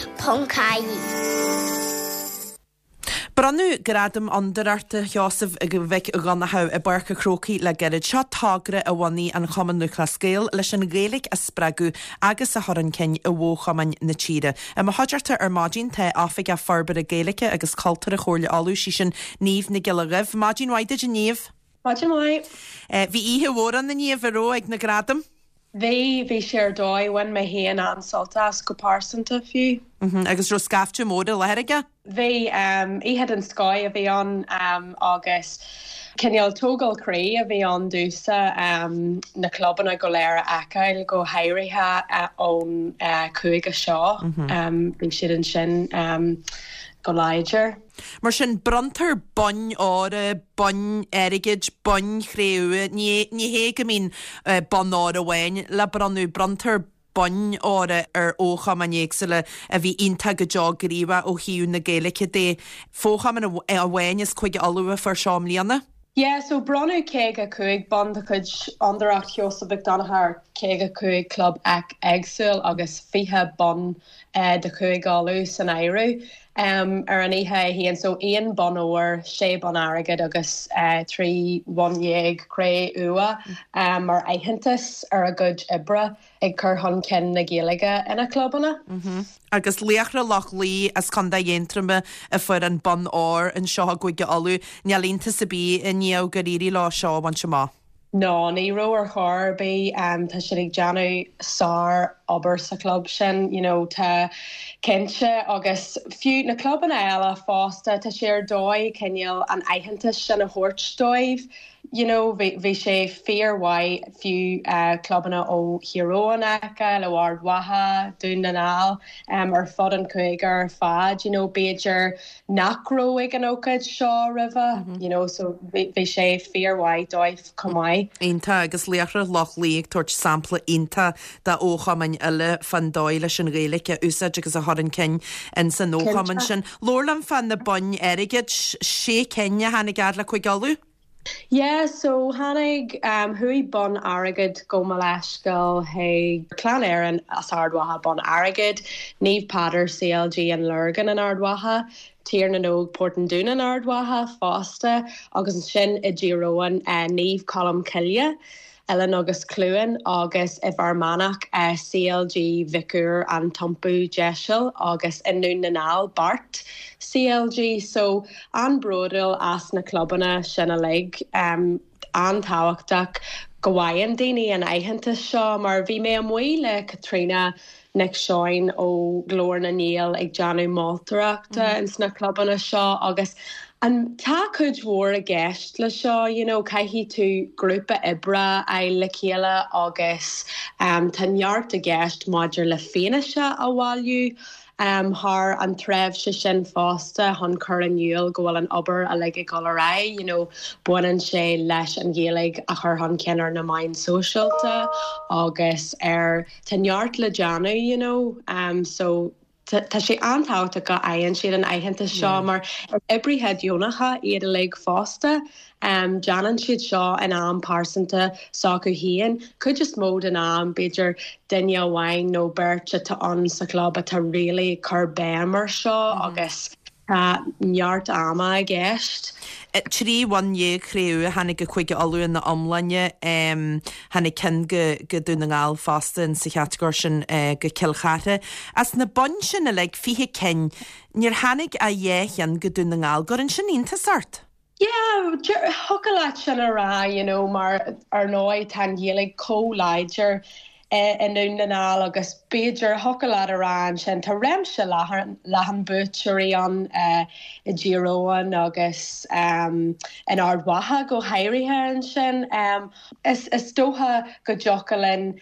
A: Bronnadh Gradam Fhondúireachta Sheosaimh Mhic Dhonncha i bPáirc an Chrócaigh le gairid. Seo togra a bhunaigh an Chumann Lúthchleas Gael leis an Ghaeilge a spreagadh agus a chur chun cinn i bhfo-chumainn na tíre. I mo chuideachta ar maidin tá Oifigeach Forbartha Gaeilge agus Cultúrtha Chomhairle Uladh, sí sin Niamh Nic Giolla Dhuibh. Maidin mhaith duit a Niamh.
G: Maidin mhaith.
A: Bhí oíche mhór ann a Niamh, an raibh, ag na gradaim?
G: Bhí, bhí sé ar dóigh. Bhain mé féin an-sult as, go pearsanta fiú.
A: Agus raibh scaifte mór i láthair aige?
G: Bhí. Oíche den scoth a bhí ann agus cineál tógáil croí a bhí ann domhsa na clubanna go léir a fheiceáil, go háirithe ón chúige seo. Bhí siad ansin go láidir.
A: Mar sin, bronntar boinn óir, boinn airgid, boinn chré-umha. Ní ní hé go mbíonn bonn óir amháin le bronnadh, bronntar boinn óir ar fhochumainn éagsúla a bhí iontach go deo gníomhach ó thaobh na Gaeilge de. Fochumann amháin as Cúige Uladh a fuair seo i mbliana.
G: Yeah, so bronnadh 55 bonn de chuid Fhondúireacht Sheosaimh Mhic Donncha ar 55 club éagsúil agus 20 bonn de Chúige Uladh san áireamh ar an oíche é féin. So aon bonn óir, sé bonn airgid agus 13 bhonn cré-umha mar aitheantas ar a gcuid oibre ag cur chun cinn na Gaeilge ina gclubanna.
A: Agus Laochra Loch Lao as Contae Aontroma a fuair an bonn óir anseo i gCúige Uladh. Níl iontas ar bith a Niamh gur éirigh leo seo a bhaint amach.
G: No, ní raibh ar chor ar bith. Tá siad ag déanamh sár obair sa chlub sin, you know, tá cinnte agus fiú na clubanna eile fosta, tá sé ar dóigh cineál an aitheantas sin a thabhairt dóibh. You know, bhí, bhí sé fíor-mhaith fiú clubanna ó Thír Eoghain a fheiceáil, ó Ard Mhacha, Dún na nGall, ar fud an chúige ar fad, you know, b'fhéidir nach raibh ag an ócáid seo roimhe, you know, so bhí sé fíor-mhaith dóibh chomh maith.
A: Iontach, agus Laochra Loch Lao ag tabhairt sampla iontach do fhochumainn eile fán dóigh leis an Ghaeilge a úsáid agus a chur chun cinn ins an fhochumann sin. Labhair liom fá na boinn airgid, sé cinn a tháinig fhad le Cúige Uladh?
G: Yeah, so tháinig, chuaigh bonn airgid, gabh mo leithscéal, chuig Clann Éireann as Ard Mhacha bonn airgid, Naomh Peadar CLG an Lorgain in Ard Mhacha, Tír na nÓg Port an Dúin in Ard Mhacha fosta agus ansin i dTír Eoghain Naomh Colm Cille. Oileán agus Cluain agus i bhFear Manach, CLG Mhic Uidhir An tIompú Deiseal agus i nDún na nGall, Beart CLG. So, an-bhródúil as na clubanna sin uilig. An-tábhachtach go bhfaigheann daoine an aitheantas seo mar bhí mé amuigh le Caitríona Nic Seoin ó Ghlór na nGael ag déanamh moltóireachta ins na clubanna seo agus an tá cuid mhór i gceist le seo you know caithfidh tú grúpa oibre a fháil le chéile agus tá neart i gceist maidir le fianaise a bhailiú thar an tréimhse sin fosta chun cur in iúl go bhfuil an obair uilig ag dul ar aghaidh you know baineann sé leis an Ghaeilge a chur chun cinn ar na meáin sóisialta agus ar Tá neart le déanamh you know so tá sé an-tábhachtach go bhfaigheann siad an aitheantas seo mar is oibrithe deonacha iad uilig fosta. Déanann siad seo in am pearsanta s'acu féin. Cuid is mó den am b'fhéidir duine amháin nó beirt atá ann sa chlub atá really ag cur béim ar seo agus Tá neart ama i gceist.
A: 13 bhonn chré-umha a tháinig go Cúige Uladh ina iomláine. Tháinig ceann go Dún na nGall fosta in sa chatagóir sin go Cill Chartha. As na boinn sin uilig, 20 cinn, níor tháinig ach dhá cheann go Dún na nGall. Gcuireann sin iontas ort?
G: Yeah, thiocfadh leat sin a rá, you know, mar ar ndóigh tá an Ghaeilge chomh láidir i nDún na nGall agus b'fhéidir, thiocfadh leat a rá ansin, tá réimse leathan buaiteoirí ann i dTír Eoghain agus in Ard Mhacha go háirithe ansin. Is dócha go dtiocfadh linn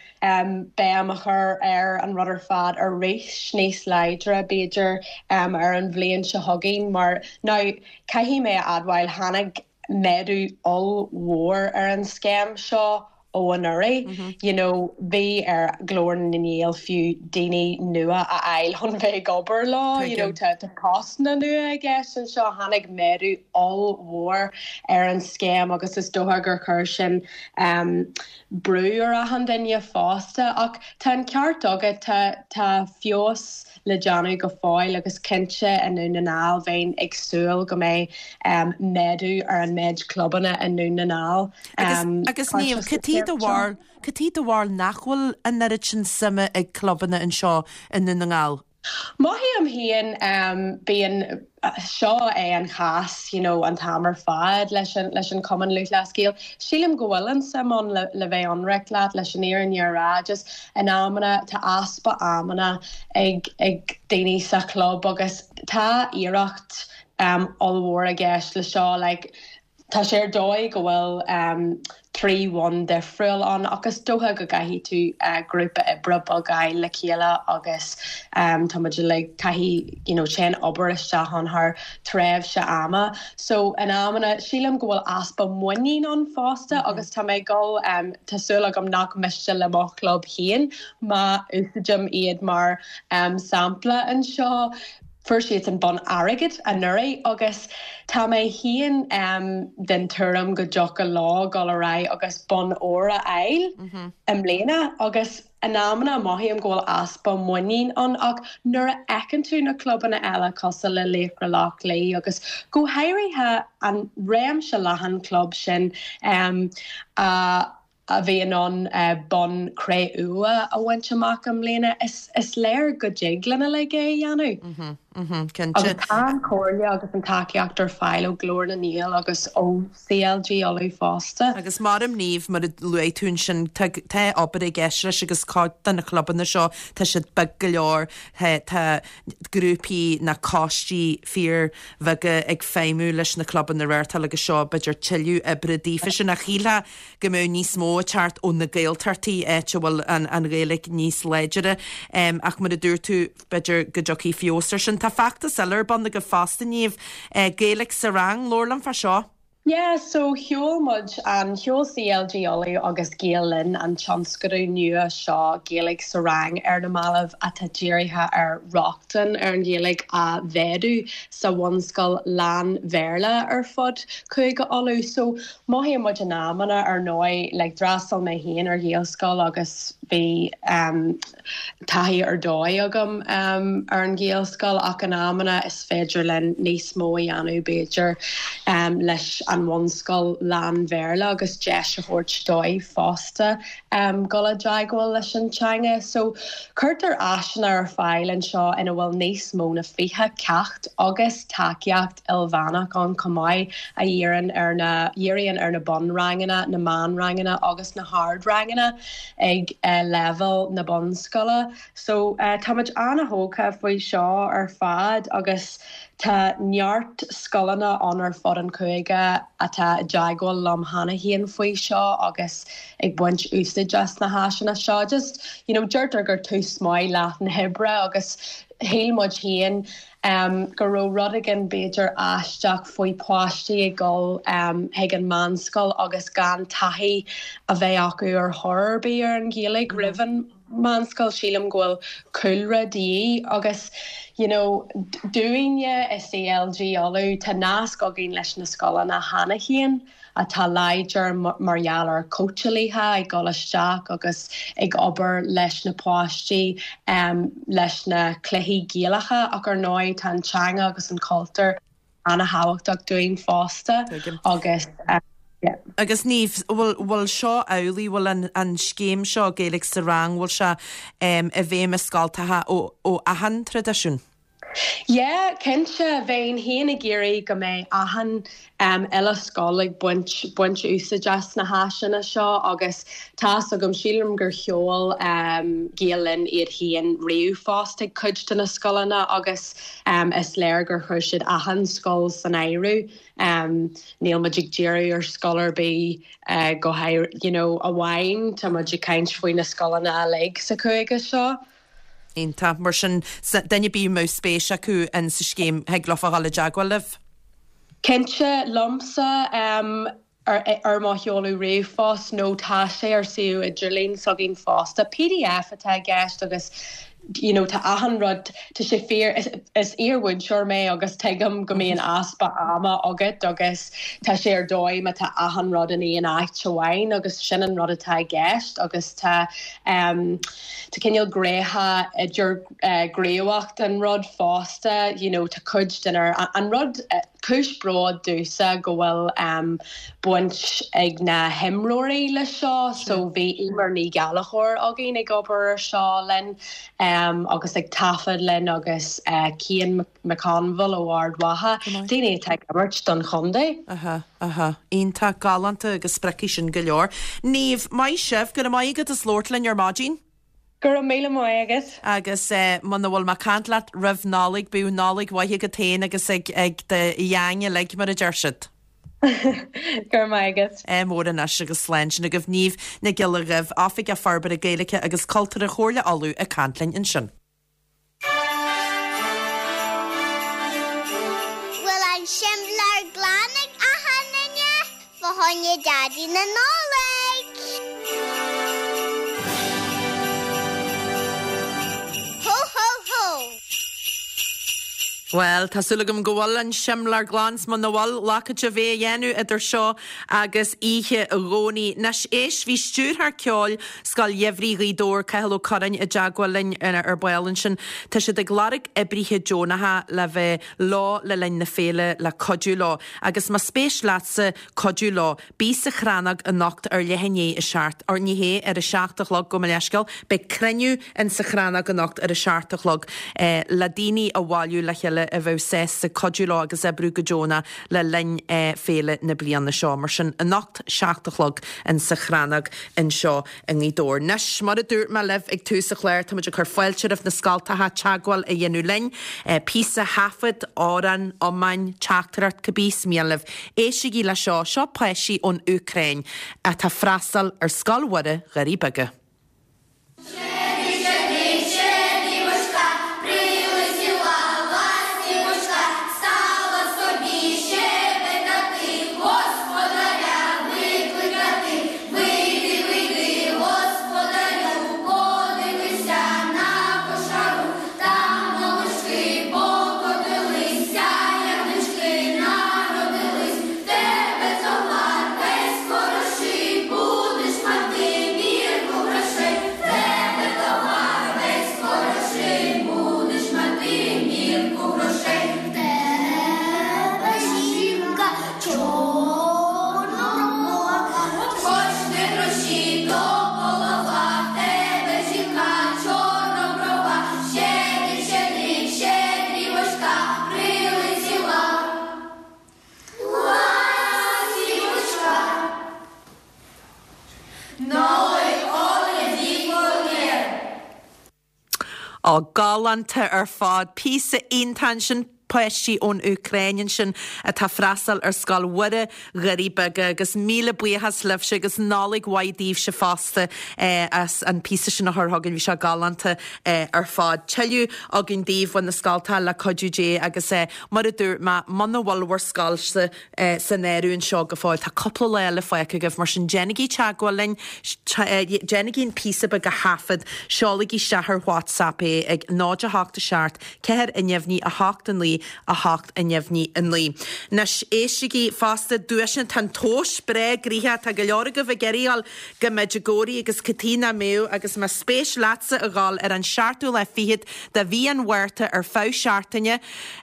G: béim a chur ar an rud ar fad arís níos láidre b'fhéidir ar an bhliain seo chugainn mar now Caithfidh mé a admháil, tháinig méadú ollmhór ar an scéim seo. ó anuraidh. You know, bhí ar Ghlór na nGael fiú daoine nua a fháil chun bheith ag obair leo, you know, tá postanna nua i gceist anseo. Tháinig méadú ollmhór ar an scéim agus is dócha gur chuir sin brú ar achan duine fosta. Ach tá an ceart agat, tá tá feabhas le déanamh go fóill agus cinnte i nDún na nGall bheinn ag súil go mbeidh méadú ar an méid clubanna i nDún na nGall.
A: Agus Niamh, cad é do bharúil, cad é do bharúil nach bhfuil an oiread sin suime ag clubanna anseo i nDún na nGall?
G: Mothaím féin, bíonn, seo é an chás you know an t-am ar fad leis an, leis an Chumann Lúthchleas Gael. Sílim go bhfuil an suim ann le, le bheith ionraic leat, leis an fhírinne a rá, just in amanna tá easpa amanna ag, ag daoine sa chlub agus tá iarracht um ollmhór i gceist le seo like Tá sé ar dóigh go bhfuil 3 bhonn difriúil ann ach is dócha go gcaithfidh tú grúpa oibre beag a fháil le chéile agus tá muid uilig, caithfidh you know téann obair isteach ann thar tréimhse ama. So in amanna sílim go bhfuil easpa muinín ann fosta agus tá mé ag dul, tá súil agam nach miste le mo chlub féin má úsáidim iad mar sampla anseo. Fuair siadsan bonn airgid anuraidh agus tá mé féin den tuairim go dtiocfadh leo dul ar aghaidh agus bonn óir a fháil i mbliana agus in amanna mothaím go bhfuil easpa muinín ann ach nuair a fheiceann tú na clubanna eile cosúil le Laochra Loch Lao agus go háirithe an réimse leathan club sin a a bhí in ann bonn cré-umha a bhaint amach i mbliana, is léir go dtig linn uilig é a dhéanamh.
A: Cinnte.
G: Agus tá an chomhairle agus an tacaíocht ar fáil ó Ghlór na nGael agus ó CLG Uladh fosta.
A: Agus maram Niamh, mar a luaigh tú ansin, tá tá obair i gceist leis agus cuid de na clubanna seo, tá siad beag go leor, tá grúpaí nó coistí fíor bheaga ag feidhmiú leis na clubanna a reáchtáil agus seo b'fhéidir tuilleadh oibre daofa sin ach shílfeá go mbeadh níos mó ag teacht ó na Gaeltachtaí, áit a bhfuil an Ghaeilge níos láidire. Ach mar a dúirt tú, b'fhéidir go dtiocfaidh feabhas ar sin. Tá feachtas eile ar bun agaibh fosta, Niamh, Gaeilge sa Rang, labhair liom fá seo.
G: Yeah, so sheol muid an, sheol CLG Uladh agus Gael Linn an tionscadal nua seo Gaeilge sa Rang ar na mallaibh atá dírithe ar rochtain ar an Ghaeilge a mhéadú sa bhunscoil lán-Bhéarla ar fud Chúige Uladh. So Mothaíonn muid in amanna, ar ndóigh, like d'fhreastail mé féin ar Ghaelscoil agus bhí em taithí ar dóigh agam em ar an Ghaelscoil ach in amanna is féidir linn níos mó a dhéanamh b'fhéidir em leis an bhunscoil lán-Bhéarla agus deis a thabhairt dóibh fosta em dul i dteagmháil leis an teanga. So cuirtear áiseanna ar fáil anseo ina bhfuil níos mó na 20 ceacht agus tacaíocht ilmheánach ann chomh maith a dhíríonn ar na dhíríonn ar na bunranganna, na meánranganna agus na hardranganna ag leibhéal na bunscoile. So táimid ana-thógtha faoi seo ar fad agus tá neart scoileanna ann ar fud an chúige atá i dteagmháil liom cheana féin faoi seo agus ag baint úsáid as na háiseanna seo. Just, you know, deirtear gur tús maith leath na hoibre agus shíl muid féin go raibh rud éigin b'fhéidir aisteach faoi páistí ag dul chuig an meánscoil agus gan taithí a bheith acu ar chor ar bith ar an Ghaeilge roimh an meánscoil. Sílim go bhfuil cúlra de dhíth agus you know dúinne i CLG Uladh tá nasc againn leis na scoileanna cheana féin. atá láidir mar gheall ar cóitseálaithe ag dul isteach agus ag obair leis na páistí leis na cluichí Gaelacha ach ar ndóigh tá an teanga agus an cultúr ana-thábhachtach dúinn fosta agus
A: yeah. Agus Niamh, bhfuil, bhfuil seo amhlaidh, bhfuil an, an scéim seo Gaeilge sa Rang, bhfuil sé i bhfeidhm i scoltacha ó, ó achan traidisiún?
G: Yeah, cinnte, bheinn féin ag iarraidh go mbeidh achan uile scoil ag baint baint úsáid as na háiseanna seo agus tá's agam, sílim gur sheol Gael Linn iad féin ríomhphost ag cuid de na scoileanna agus is léir gur chuir siad achan scoil san áireamh. Níl muid ag díriú ar scoil ar bith go háirithe, you know, amháin, tá muid ag caint faoi na scoileanna uilig sa chúige seo.
A: Iontach. Mar sin, duine ar bith a mbeadh spéis acu in sa scéim, thig leofa dhul i dteagmháil libh?
G: Cinnte, liomsa. Ar ar mo sheoladh ríomhphost nó tá sé ar suíomh idirlín s'againn fosta. Pdf atá i gceist agus you know tá achan rud, tá sé fíor, is is iar-mhúinteoir mé agus tuigim go mbíonn easpa ama agat agus tá sé ar dóigh má tá achan rud in aon áit amháin agus sin an rud atá i gceist agus tá em tá cineál gnéithe idir eh gníomhach den rud fosta you know tá cuid den ar an rud eh Cúis bróid domhsa go bhfuil baint ag na himreoirí leis seo. So bhí Eimear Ní Ghallchóir againn ag obair ar seo linn agus ag taifead linn agus Cian McConville ó Ard Mhacha, daoine atá ag imirt don chontae.
A: Aha, aha. Iontach, galánta agus spreagfaidh sin go leor. Niamh, maith sibh, go raibh maith agat as labhairt linn ar maidin.
G: Go raibh míle maith agat.
A: Agus muna bhfuil mé ag caint leat roimh Nollaig, bíodh Nollaig mhaith agat féin agus ag ag do gheaing uilig, mar a deir siad.
G: Go raibh maith agat.
A: Ádh mór anois agus slán. Sin agaibh Niamh Nic Giolla Dhuibh, Oifigeach Forbartha Gaeilge agus Cultúrtha Chomhairle Uladh ag caint linn ansin.
C: Bhfuil an simléar glan ag achan duine? Fá choinne Daidí na Nollag! Hó hó hó!
A: Bhuel, tá súil agam go bhfuil an simléar glan 's muna bhfuil, lacáid a bheith a dhéanamh idir seo agus oíche Dhomhnaigh. Anois, éist, bhí stiúrthóir ceoil Scoil Gheimhridh Ghaoth Dobhair, Cathal Ó Curráin, i dteagmháil linn ar ball ansin. Tá siad ag lorg oibrithe deonacha le bheith leo le linn na féile le cuidiú leo. Agus más spéis leatsa cuidiú leo, bí sa Chrannóg anocht ar leath i ndiaidh a seacht, or ní hea, ar a seacht a chlog, gabh mo leithscéal, beidh cruinniú in sa Chrannóg anocht ar a seacht a chlog le daoine a bhailiú le chéile a bheadh sásta cuidiú leo agus oibriú go deonach le linn féile na bliana seo. Mar sin, anocht, 7 a chlog in sa Chrannóg anseo i nGaoth Dobhair. Anois, mar a dúirt mé libh ag tús an chláir, táimid ag cur fáilte roimh na scoltacha teagmháil a dhéanamh linn. Píosa taifead, amhrán, iomáin, teachtaireacht, cibé is mian libh. Éistigí le seo, seo páistí ón Úcráin atá ag freastal ar Scoil Mhuire, Dhoirí Beaga. Ó, galánta ar fad. Píosa iontach ansin, páistí ón Úcráin ansin atá ag freastal ar Scoil Mhuire, Dhoirí Beaga agus míle buíochas libhse agus Nollaig mhaith daoibhse fosta as an píosa sin a chur chugainn, bhí sé galánta ar fad. Tuilleadh againn daoibh ó na scoltacha le cuidiú Dé agus mar a dúirt mé, muna bhfuil bhur scoilse san áireamh anseo go fóill, tá cúpla lá eile fágtha agaibh, mar sin déanaigí teagmháil linn, déanaigí an píosa beag a thaifead, seolaigí isteach ar WhatsApp é ag 0 8 7 4 neamhní 8 9 8 neamhní 9. Anois, éistigí fosta, duaiseanna, tá an tomhas breá gnoitheach, tá go leor agaibh ag iarraidh a dhul go Medjugorje agus cad chuige nach mbeadh agus más spéis leatsa a dhul ar an seachtú lá fichead de mhí an Mhárta ar feadh seachtaine,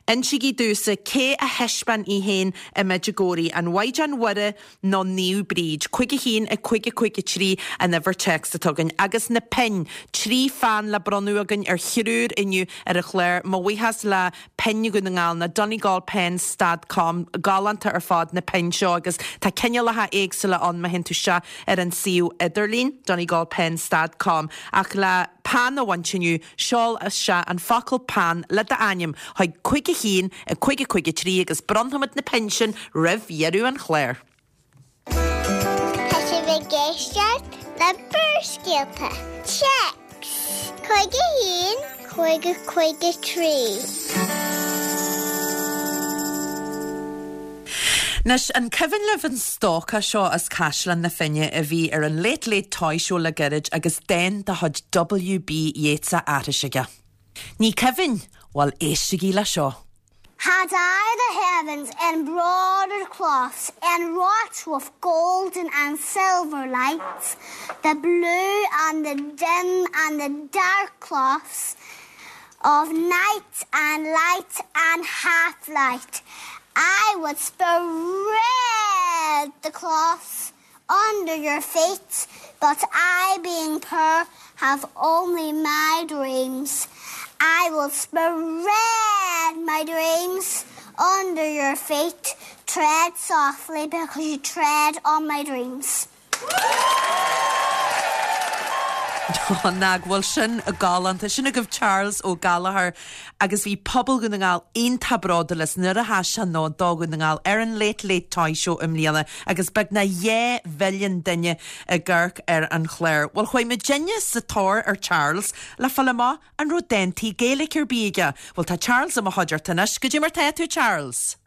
A: Insígí domhsa cé a thaispeáin í féin i Medjugorje, an Mhaighdean Mhuire nó Naomh Bríd? 5 1 5 5 3 an uimhir téacs atá againn. Agus na pinn, 3 pheann le bronnadh againn ar thriúr inniu ar an chlár. Mo bhuíochas le Pinn Dhún na nGall, na DonegalPens dot com. Galánta ar fad na pinn seo agus tá cineálacha éagsúla ann má théann tú isteach ar an suíomh idirlín, DonegalPens dot com. Ach le peann a bhaint inniu, Seol isteach an focal 'peann' le d'ainm chuig 5 1 5 5 3 agus bronnfaimid na pinn sin roimh dheireadh an chláir.
C: Tá sibh ag éisteacht le Barrscéalta. Téacs 5 1 5 5 3.
A: Anois, an cuimhin libh an stócach seo as Caisleán na Finne a bhí ar an Late Late Toy Show le gairid agus dán de chuid W.B. Yeats á aithris aige? Ní cuimhin? Bhuel, éistigí le seo.
C: Had I the heavens embroidered cloths and wrought with golden and silver lights, the blue and the dim and the dark cloths of night and light and half-light, I would spread the cloths under your feet, but I being poor have only my dreams. I will spread my dreams under your feet, tread softly because you tread on my dreams.
A: Nach bhfuil sin galánta. Sin agaibh Charles Ó Gallchóir agus bhí pobal Dhún na nGall iontach bródúil as nuair a sheas sé ann do Dhún na nGall ar an Late Late Toy Show i mbliana agus beagnach 2 mhilliún duine ag amharc ar an chlár. Bhuel chuaigh muidinne sa tóir ar Charles le fáil amach an raibh dántaí Gaeilge ar bith aige. Bhuel tá Charles i mo chuideachta anois. Goidé mar tá tú Charles?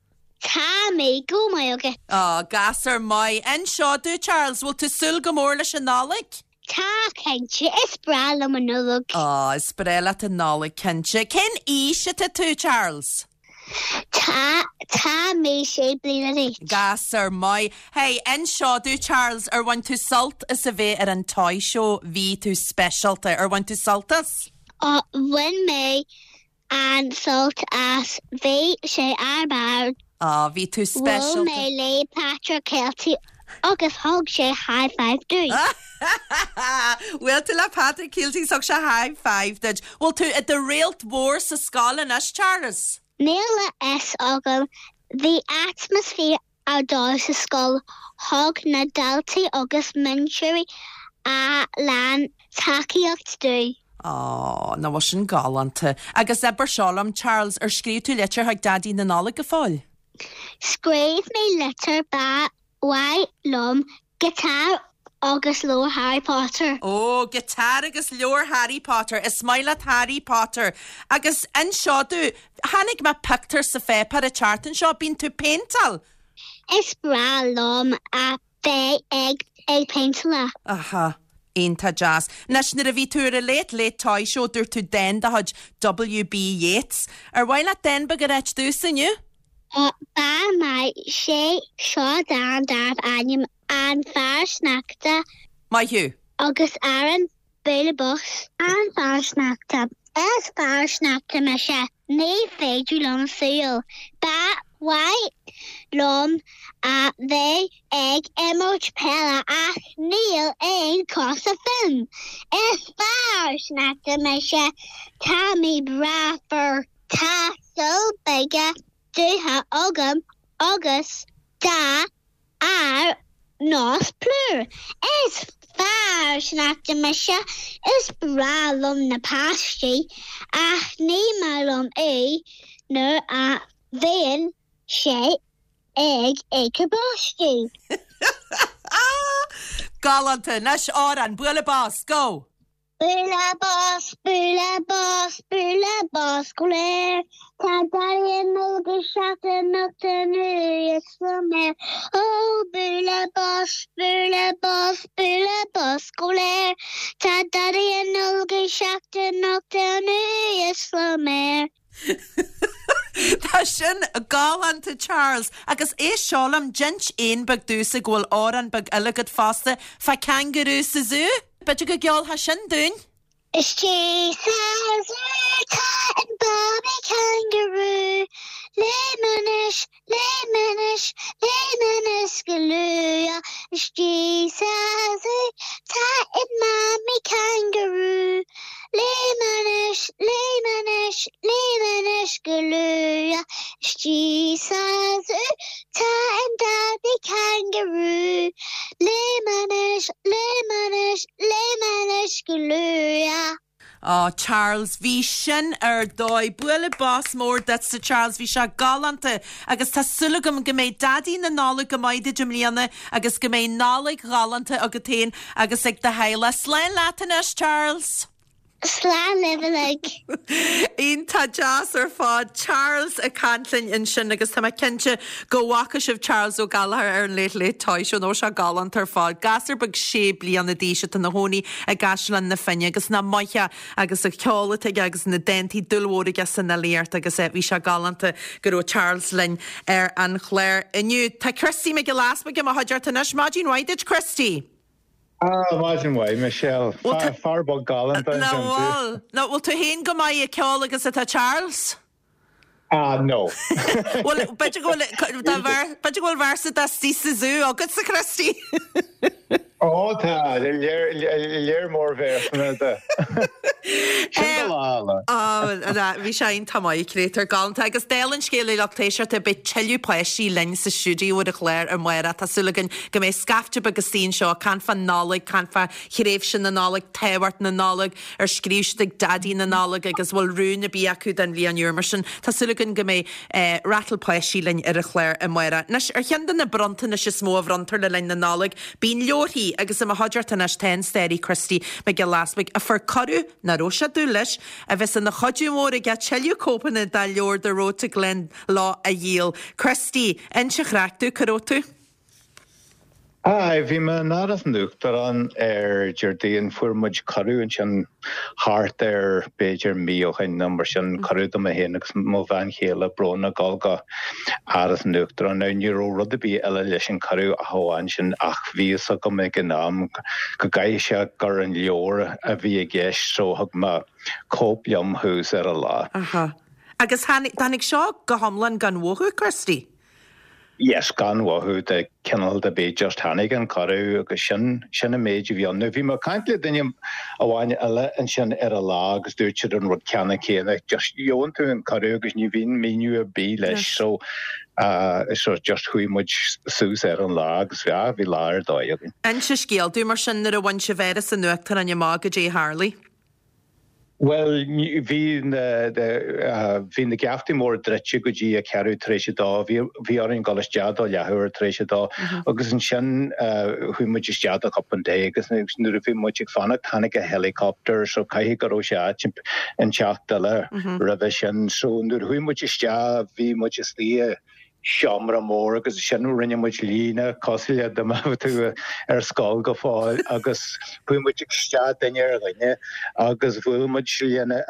C: Tá mé go maith agat.
A: Á, gasúr maith. Inis seo domh, Charles, bhfuil tú súil go mór leis an Nollaig?
C: Tá, cinnte. Is breá liom an Nollaig.
A: Á, is breá leat an Nollaig, cinnte. Cén aois atá tú, Charles?
C: Tá, tá mé sé bliana d'aois.
A: Gasúr maith. Hey, inis seo domh, Charles, ar bhain tú sult as a bheith ar an Toy Show? Bhí tú speisialta. Ar bhain tú sult as?
C: Á, bhain mé an-sult as. Bhí sé ar barr.
A: Á, bhí tú
C: speisialta. Bhuail mé le Patrick Kielty agus thug sé high five domh.
A: Bhuail tú le Patrick Kielty is thug sé high five duit. Bhfuil tú i do réalt mhór sa scoil anois, Charles?
C: Níl a fhios agam. Bhí atmaisféar ar dóigh sa scoil, thug na daltaí agus múinteoirí a lán tacaíocht domh.
A: Á, nach bhfuil sin galánta. Agus abair seo liom, Charles, ar scríobh tú litir chuig Daidí na Nollag go fóill?
C: Scríobh mé litir, ba mhaith liom Giotár agus leabhar Harry Potter.
A: Ó, giotár agus leabhar Harry Potter. Is maith leat Harry Potter. Agus inis seo domh, chonaic mé pictiúr sa pháipéar an tseachtain seo, bíonn tú ag péinteáil?
C: Is breá liom a bheith ag ag péinteáil.
A: Aha. Iontach deas. Anois, nuair a bhí tú ar an Late Late Toy Show, dúirt tú dán de chuid W.B. Yeats. Ar mhaith leat dán beag a ráit domhsa inniu?
C: Ba mhaith sé seo dán darbh ainm An Fear Sneachta.
A: Maith thú.
C: Agus amhrán Bualadh Bos. An Fear Sneachta. Is fear sneachta mise. Ní féidir liom siúl. Ba mhaith liom a bheith ag imirt peile ach níl aon cosa fúm. Is fear sneachta mise. Tá mé breá fuar. Tá súile beaga dubha agam agus dath ar nós plúr. Is fear sneachta mise. Is breá liom na páistí ach ní maith liom é nuair a bhíonn sé ag ithe báistí.
A: Galánta! Anois amhrán, bualadh bos, go!
C: Bualadh bos, bualadh bos, bualadh bos go léir. Tá Daidí na Nollag ag teacht anocht anuas san aer. Ó, bualadh bos, bualadh bos, bualadh bos go léir. Tá Daidí na Nollag ag teacht anocht anuas san aer.
A: Tá sin galánta Charles. Agus éist seo liom, d'inis éan beag domhsa go bhfuil amhrán beag eile agat fosta fá kangaroo sa zú. B'fhéidir go gceolfá sin dúinn?
C: Istigh sa zú tá an babaí kangaroo, Léim anuas, léim anuas, léim anuas go luath. Istigh sa zú tá an mamaí kangaroo, Léim anuas, léim anuas, léim anuas go luath. Istigh sa zú tá an daidí kangaroo. Léim anuas, léim anuas, léim anuas go luath.
A: Á, Charles, bhí sin ar dóigh. Bualadh bos mór duitse, Charles, bhí sé galánta agus tá súil agam go mbeidh Daidí na Nollag go maith duit i mbliana agus go mbeidh Nollaig ghalánta agat féin agus ag do theaghlach. Slán leat anois, Charles!
C: Slán libh uilig.
A: Iontach deas ar fad. Charles ag caint linn ansin agus tá mé cinnte go bhfaca sibh Charles Ó Gallchóir ar an Late Late Toy Show nó sé galánta ar fad. Gasúr beag sé bliana d'aois atá ina chónaí i gCaisleán na Finne agus nach maith é agus an ceol atá aige agus na dántaí dúil mhór aige san fhilíocht agus bhí sé galánta go raibh Charles linn ar an chlár inniu. Tá Christy Mac Giolla Easbuig i mo chuideachta anois. Maidin mhaith duit Christy!
H: Ah, maidin mhaith, Michelle. Fear beag galánta
A: ansin tú. Nach bhfuil? Nach bhfuil tú féin chomh maith ag ceol agus atá Charles?
H: Ah, no.
A: Bhuel, b'fhéidir go bhfuil, b'fhéidir go bhfuil véarsa de 'Istigh sa Zú agatsa, Christy.
H: Ó, tá, léir mór véarsanna de. Sin do lá, lá.
A: Ó, bhí sé iontach maith, créatúr galánta. Agus dála an scéil a lucht éisteachta, beidh tuilleadh páistí linn sa stiúideo ar an chlár amárach. Tá súil againn go mbeidh scaifte beag istigh anseo ag caint fán Nollaig, caint fá thréimhse na Nollag, tábhacht na Nollag, ar scríobh siad ag Daidí na Nollag agus bhfuil rún ar bith acu don bhliain úr. Mar sin, tá súil againn go mbeidh ratal páistí linn ar an chlár amárach. Anois, ar cheann de na bronntanais is mó a bhronntar le linn na Nollag, bíonn leabharthaí agus i mo chuideachta anois tá an staraí Christy Mac Giolla Easbuig a fuair cuireadh, nach raibh sé ag dúil leis, a bheas ina chuidiú mór aige tuilleadh cóipeanna dá leabhar The Road to Glensloe a dhíol. Christy, inis an chraic domh, cá raibh tú?
H: Aye, bhí mé in Áras an Uachtaráin ar Déardaoin. Fuair muid cuireadh ansin thart ar b'fhéidir mí ó shin nó mar sin, cuireadh do mé féin agus mo bhean chéile Bróna dul go Áras an Uachtaráin. Now ní raibh rud ar bith eile leis an cuireadh ach amháin sin ach bhí fhios agam ag an am go gcaithfidh sé gur an leabhar a bhí i gceist so thug mé cóip liom thuas ar an lá.
A: Aha. Agus tháinig seo go hiomlán gan mhothú, Christy?
H: Yes, gan mhothú de chineál ar bith, just tháinig an cuireadh agus sin, sin an méid a bhí ann. Now bhí mé ag caint le duine amháin eile ansin ar an lá agus dúirt siad an rud ceannann céanna, just gheobhann tú an cuireadh agus ní bhíonn míniú ar bith leis so uh, so just chuaigh muid suas ar an lá agus bhí, bhí lá ar dóigh againn.
A: Inis an scéal domh mar sin nuair a bhain sibh Áras an Uachtaráin amach goidé a tharlaigh.
H: Bhuel, bhí na, bhí na geaftaí móra druidte go dtí a ceathrú tar éis a dó. Bhí, bhí orainn dul isteach do leathuair tar éis a dó agus ansin chuaigh muid isteach do chupán tae agus nuair a bhí muid ag fanacht tháinig an helicopter so caithfidh go raibh sé áit inteacht eile roimhe sin. So nuair a chuaigh muid isteach bhí muid istigh i seomra mór agus ansin rinne muid líne cosúil le dá mbeadh tú ar scoil go fóill agus chuaigh muid isteach duine ar dhuine agus bhuail muid lena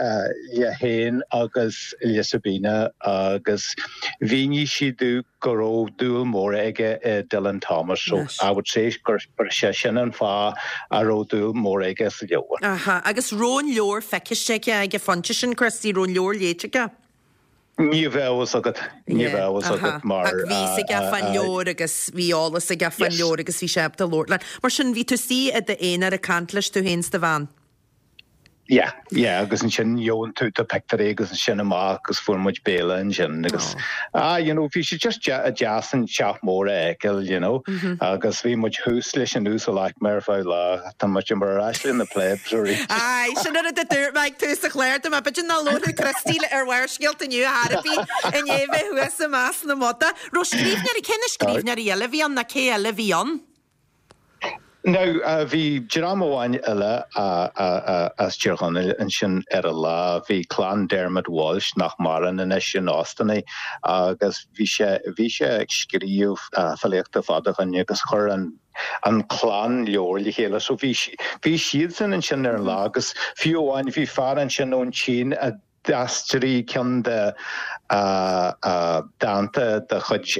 H: le féin agus le Sabina agus mhínigh sí domh go raibh dúil mór aige i Dylan Thomas so I would say gur sé sin an fáth a raibh dúil mór aige sa leabhar.
A: Aha, agus raibh an leabhar feiciste aige ag an phointe sin, Christy, raibh an leabhar léite aige?
H: Ní bheadh fhios agat, ní bheadh fhios agat mar.
A: Ach bhí fhios aige fán leabhar agus bhí eolas aige fán leabhar agus bhí sé ábalta labhairt leat. Mar sin, bhí tú istigh i d'aonar ag caint leis, tú féin 's do bhean.
H: Yeah, yeah, agus ansin gheobhann tú do pictiúirí agus ansin amach agus fuair muid béile ansin agus ah, you know, bhí sé just deas an teach mór a fheiceáil, you know, agus bhí muid thuas leis an uasal aicme ar feadh lá. Tá muid ar ais le na plebs arís.
A: Aye, sin an rud a dúirt mé ag tús an chláir dom, b'fhéidir nach labharfadh Christy le ar Bharrscéalta inniu ar chor ar bith i ndiaidh bheith thuas i measc na mbodach. Raibh scríbhneoirí, cé na scríbhneoirí eile a bhí ann nó cé eile a bhí ann?
H: Now, bhí dream amháin eile as Tír Chonaill ansin ar an lá. Bhí clann Dermot Walsh, nach maireann anois, in Austin é, agus bhí sé, bhí sé ag scríobh filíochta fada ó shin agus chuir an, an clann leabhar le chéile. So bhí, bhí siadsan ansin ar an lá agus fiú amháin bhí fear ansin ón tSín a d'aistrigh ceann de dánta de chuid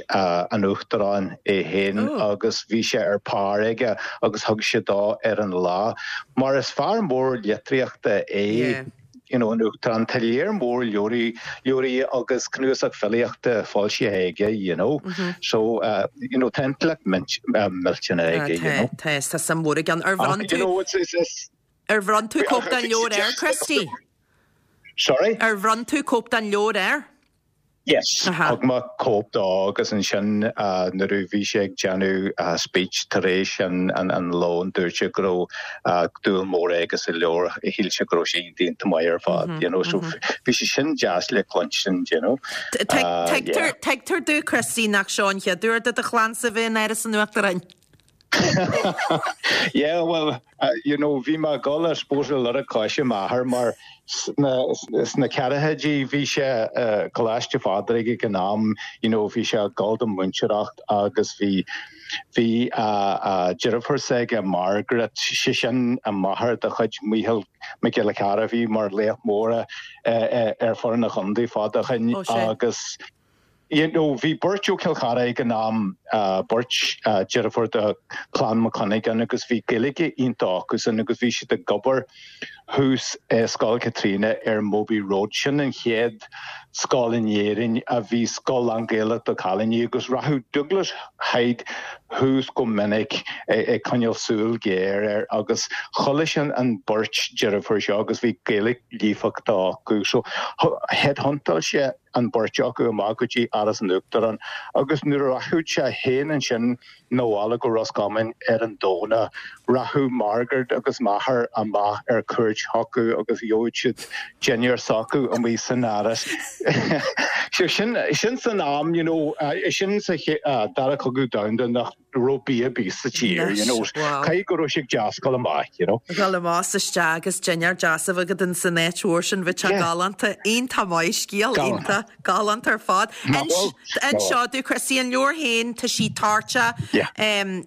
H: an Uachtaráin é féin agus bhí sé ar pár aige agus thug sé dó ar an lá. Mar is fear mór litríochta é. you know, an Uachtarán, tá léar mór leabhraí, leabhraí agus cnuasach filíochta foilsithe aige, you know. So, uh, you know, tá intleacht millteanach aige, you know.
A: Tá, tá suim mhór aige ann. Ar bhronn tú, you know, it's, it's, it's, ar bhronn tú cóip den leabhar air, Christy?
H: Sorry?
A: Ar bhronn tú cóip den leabhar air?
H: Yes, thug mé cóip dó agus ansin nuair a bhí sé ag déanamh speech tar éis an lóin dúirt sé go raibh dúil mór aige sa leabhar, shíl sé go raibh sé iontach maith ar fad, you know, so bhí sé sin deas le cluinstin, you know.
A: Tuigtear domh, Christy, nach seo an chéad uair do do chlannsa bheith in Áras an Uachtaráin.
H: Yeah, well, you know, bhí mé ag dul, I suppose, ar lorg coise m'athar mar sna, sna ceathrachaidí bhí sé i gColáiste Phádraig ag an am, you know, bhí sé ag dul don mhúinteoireacht agus bhí, bhí a deirfiúr s'aige, Margaret, sé sin an máthair de chuid Mícheál Mac Giolla Chearra a bhí mar laoch mór ar foireann an chontae fada ó shin agus, You know, bhí beirt ó Chill Chartha ag an am, beirt deirfiúr de Chlann Mac Cuinneagáin agus bhí Gaeilge iontach acusan agus bhí siad ag obair thuas i Scoil Chaitríona ar Mobhi Road. Sin an chéad scoil in Éirinn a bhí scoil lán-Ghaelach do chailíní agus rachadh Douglas Hyde thuas go minic ag coinneáil súil ghéar air agus chuala sé an beirt deirfiúr seo agus bhí Gaeilge líofachta acu. So headhuntáil sé an bheirt acu amach go dtí Áras an Uachtaráin agus nuair a rachadh sé féin ansin 'na bhaile go Ros Comáin ar an Domhnach, rachadh Margaret agus m'athair amach ar cuairt chucu agus gheobhadh siad dinnéar s'acu amuigh san Áras. So sin, sin san am, you know, sin sa Dara Cogadh Domhanda nach raibh bia ar bith sa tír, you know, caithfidh go raibh sé deas dul amach, you know.
A: Dul amach is isteach agus dinnéar deas a bheith agat in san áit mhór sin, bheadh sé galánta, iontach maith, scéal iontach, galánta ar fad. Inis domh, Christy, an leabhar féin, tá sí toirteach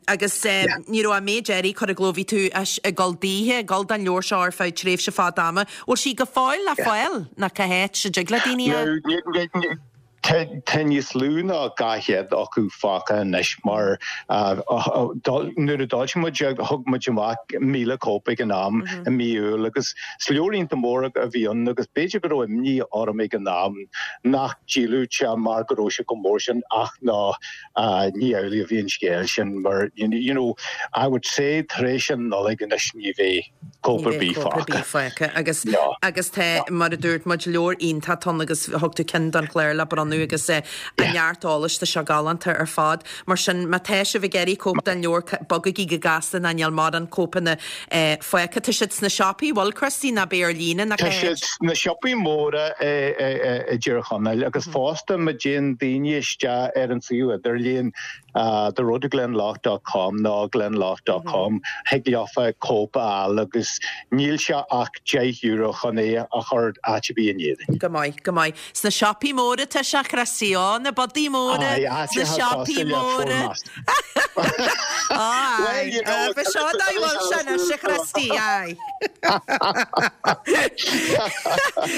A: agus ní raibh an méid earraí curtha i gcló, bhí tú ag dul daoithe, ag dul don leabhar seo ar feadh tréimhse fada ama. Bhfuil sí go fóill le fáil nó cá háit a dtig le daoine
H: a. Tá níos lú ná 200 acu fágtha anois mar nuair a d'fhoilsigh muid é thug muid amach 1,000 cóip ag an am i mí Iúil agus is leabhar iontach mór a bhí ann agus b'fhéidir go raibh imní orm ag an am nach ndíolfadh sé mar go raibh sé chomh mór sin ach ná ní amhlaidh a bhí an scéal sin mar you know I would say tar éis an Nollaig anois ní bheidh cóip ar bith
A: fágtha. Agus agus tá, mar a dúirt muid, leabhar iontach ann agus thug tú ceann don chlár le bronnadh agus a neart eolais, tá sé galánta ar fad. Mar sin, má tá sibh ag iarraidh cóip den leabhar, bogaigí go gasta nó níl mórán cóipeanna fágtha. Tá siad sna siopaí, bhfuil, Christy, nó beidh ar líne
H: nó Tá siad sna siopaí móra i dTír Chonaill agus fosta má dtéann daoine isteach ar an suíomh idirlíon, The Road to Glendalough dot com nó Glendalough dot com thig leofa cóip a fháil agus níl sé ach €10 chun é a chur áit ar bith in Éirinn.
A: Go maith, go maith. Sna siopaí móra tá sé, Christy, ó, na bodaí móra, sna siopaí móra. Ó, aye. Ba seo dá bhfuil sé anois, a Christy, aye.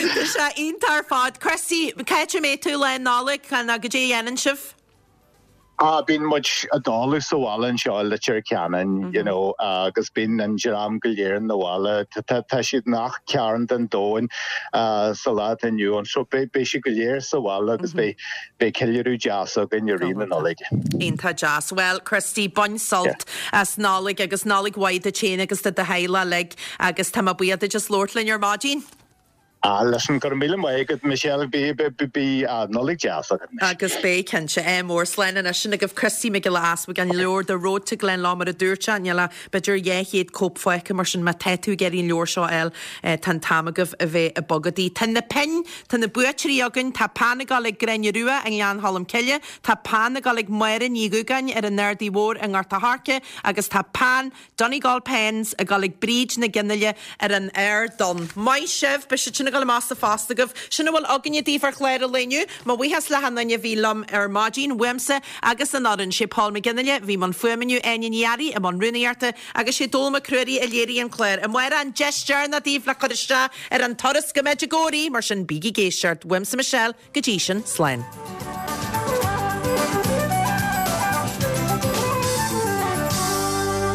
A: Tá sé iontach ar fad. Christy, cá háit a mbeidh tú lá Nollag, nó goidé a dhéanann sibh?
H: Ah, bíonn muid i dtólamh sa bhaile anseo i Leitir Ceanainn, you know, agus bíonn an dream go léir 'na bhaile. Tá siad i ngach cearn den domhan sa lá atá inniu ann, so beidh siad go léir sa bhaile agus beidh ceiliúradh deas againn i rith na Nollag.
A: Iontach deas. Bhuel, Christy, bain sult as Nollaig agus Nollaig mhaith duit féin agus do do theaghlach uilig agus tá mé buíoch duit as labhairt linn ar maidin.
H: Ah, listen, go raibh míle maith agat, Michelle. Bí, bí, Nollaig deas agat
A: anois. Agus beidh, cinnte. Ádh mór. Slán anois. Sin agaibh Christy Mac Giolla Easbuig, an leabhar The Road to Glendalough mar a dúirt sé, níl ach b'fhéidir 200 cóip fágtha mar sin má tá tú ag iarraidh an leabhar seo a fháil, tá an t-am agaibh a bheith ag bogadaí. Tá na pinn, tá na buaiteoirí againn, tá peann ag dul ag Gráinne Rua i nGleann Cholm Cille, tá peann ag dul ag Máire Ní Dhúgáin ar an Ardaidh Mhór i nGort a' Choirce agus tá peann Donegal Pens ag dul ag Bríd Nic Fhionnghaile ar an Ard Donn. Maith sibh! Beidh siad sin ag dul amach sa phost agaibh. Sin a bhfuil againne daoibh ar chlár an lae inniu. Mo bhuíochas le hachan duine a bhí liom ar maidin, uaimse agus an fhoireann. Sé Paul McGinley a bhí i mbun fuaime inniu, Áine Ní Fhearraigh i mbun rúnaíochta agus sé Dónall Mac Ruairí a léirigh an clár. Amárach an deis deireanach daoibh le cur isteach ar an turas go Medjugorje, mar sin bígí ag éisteacht. Uaimse Michelle, go dtí sin, slán.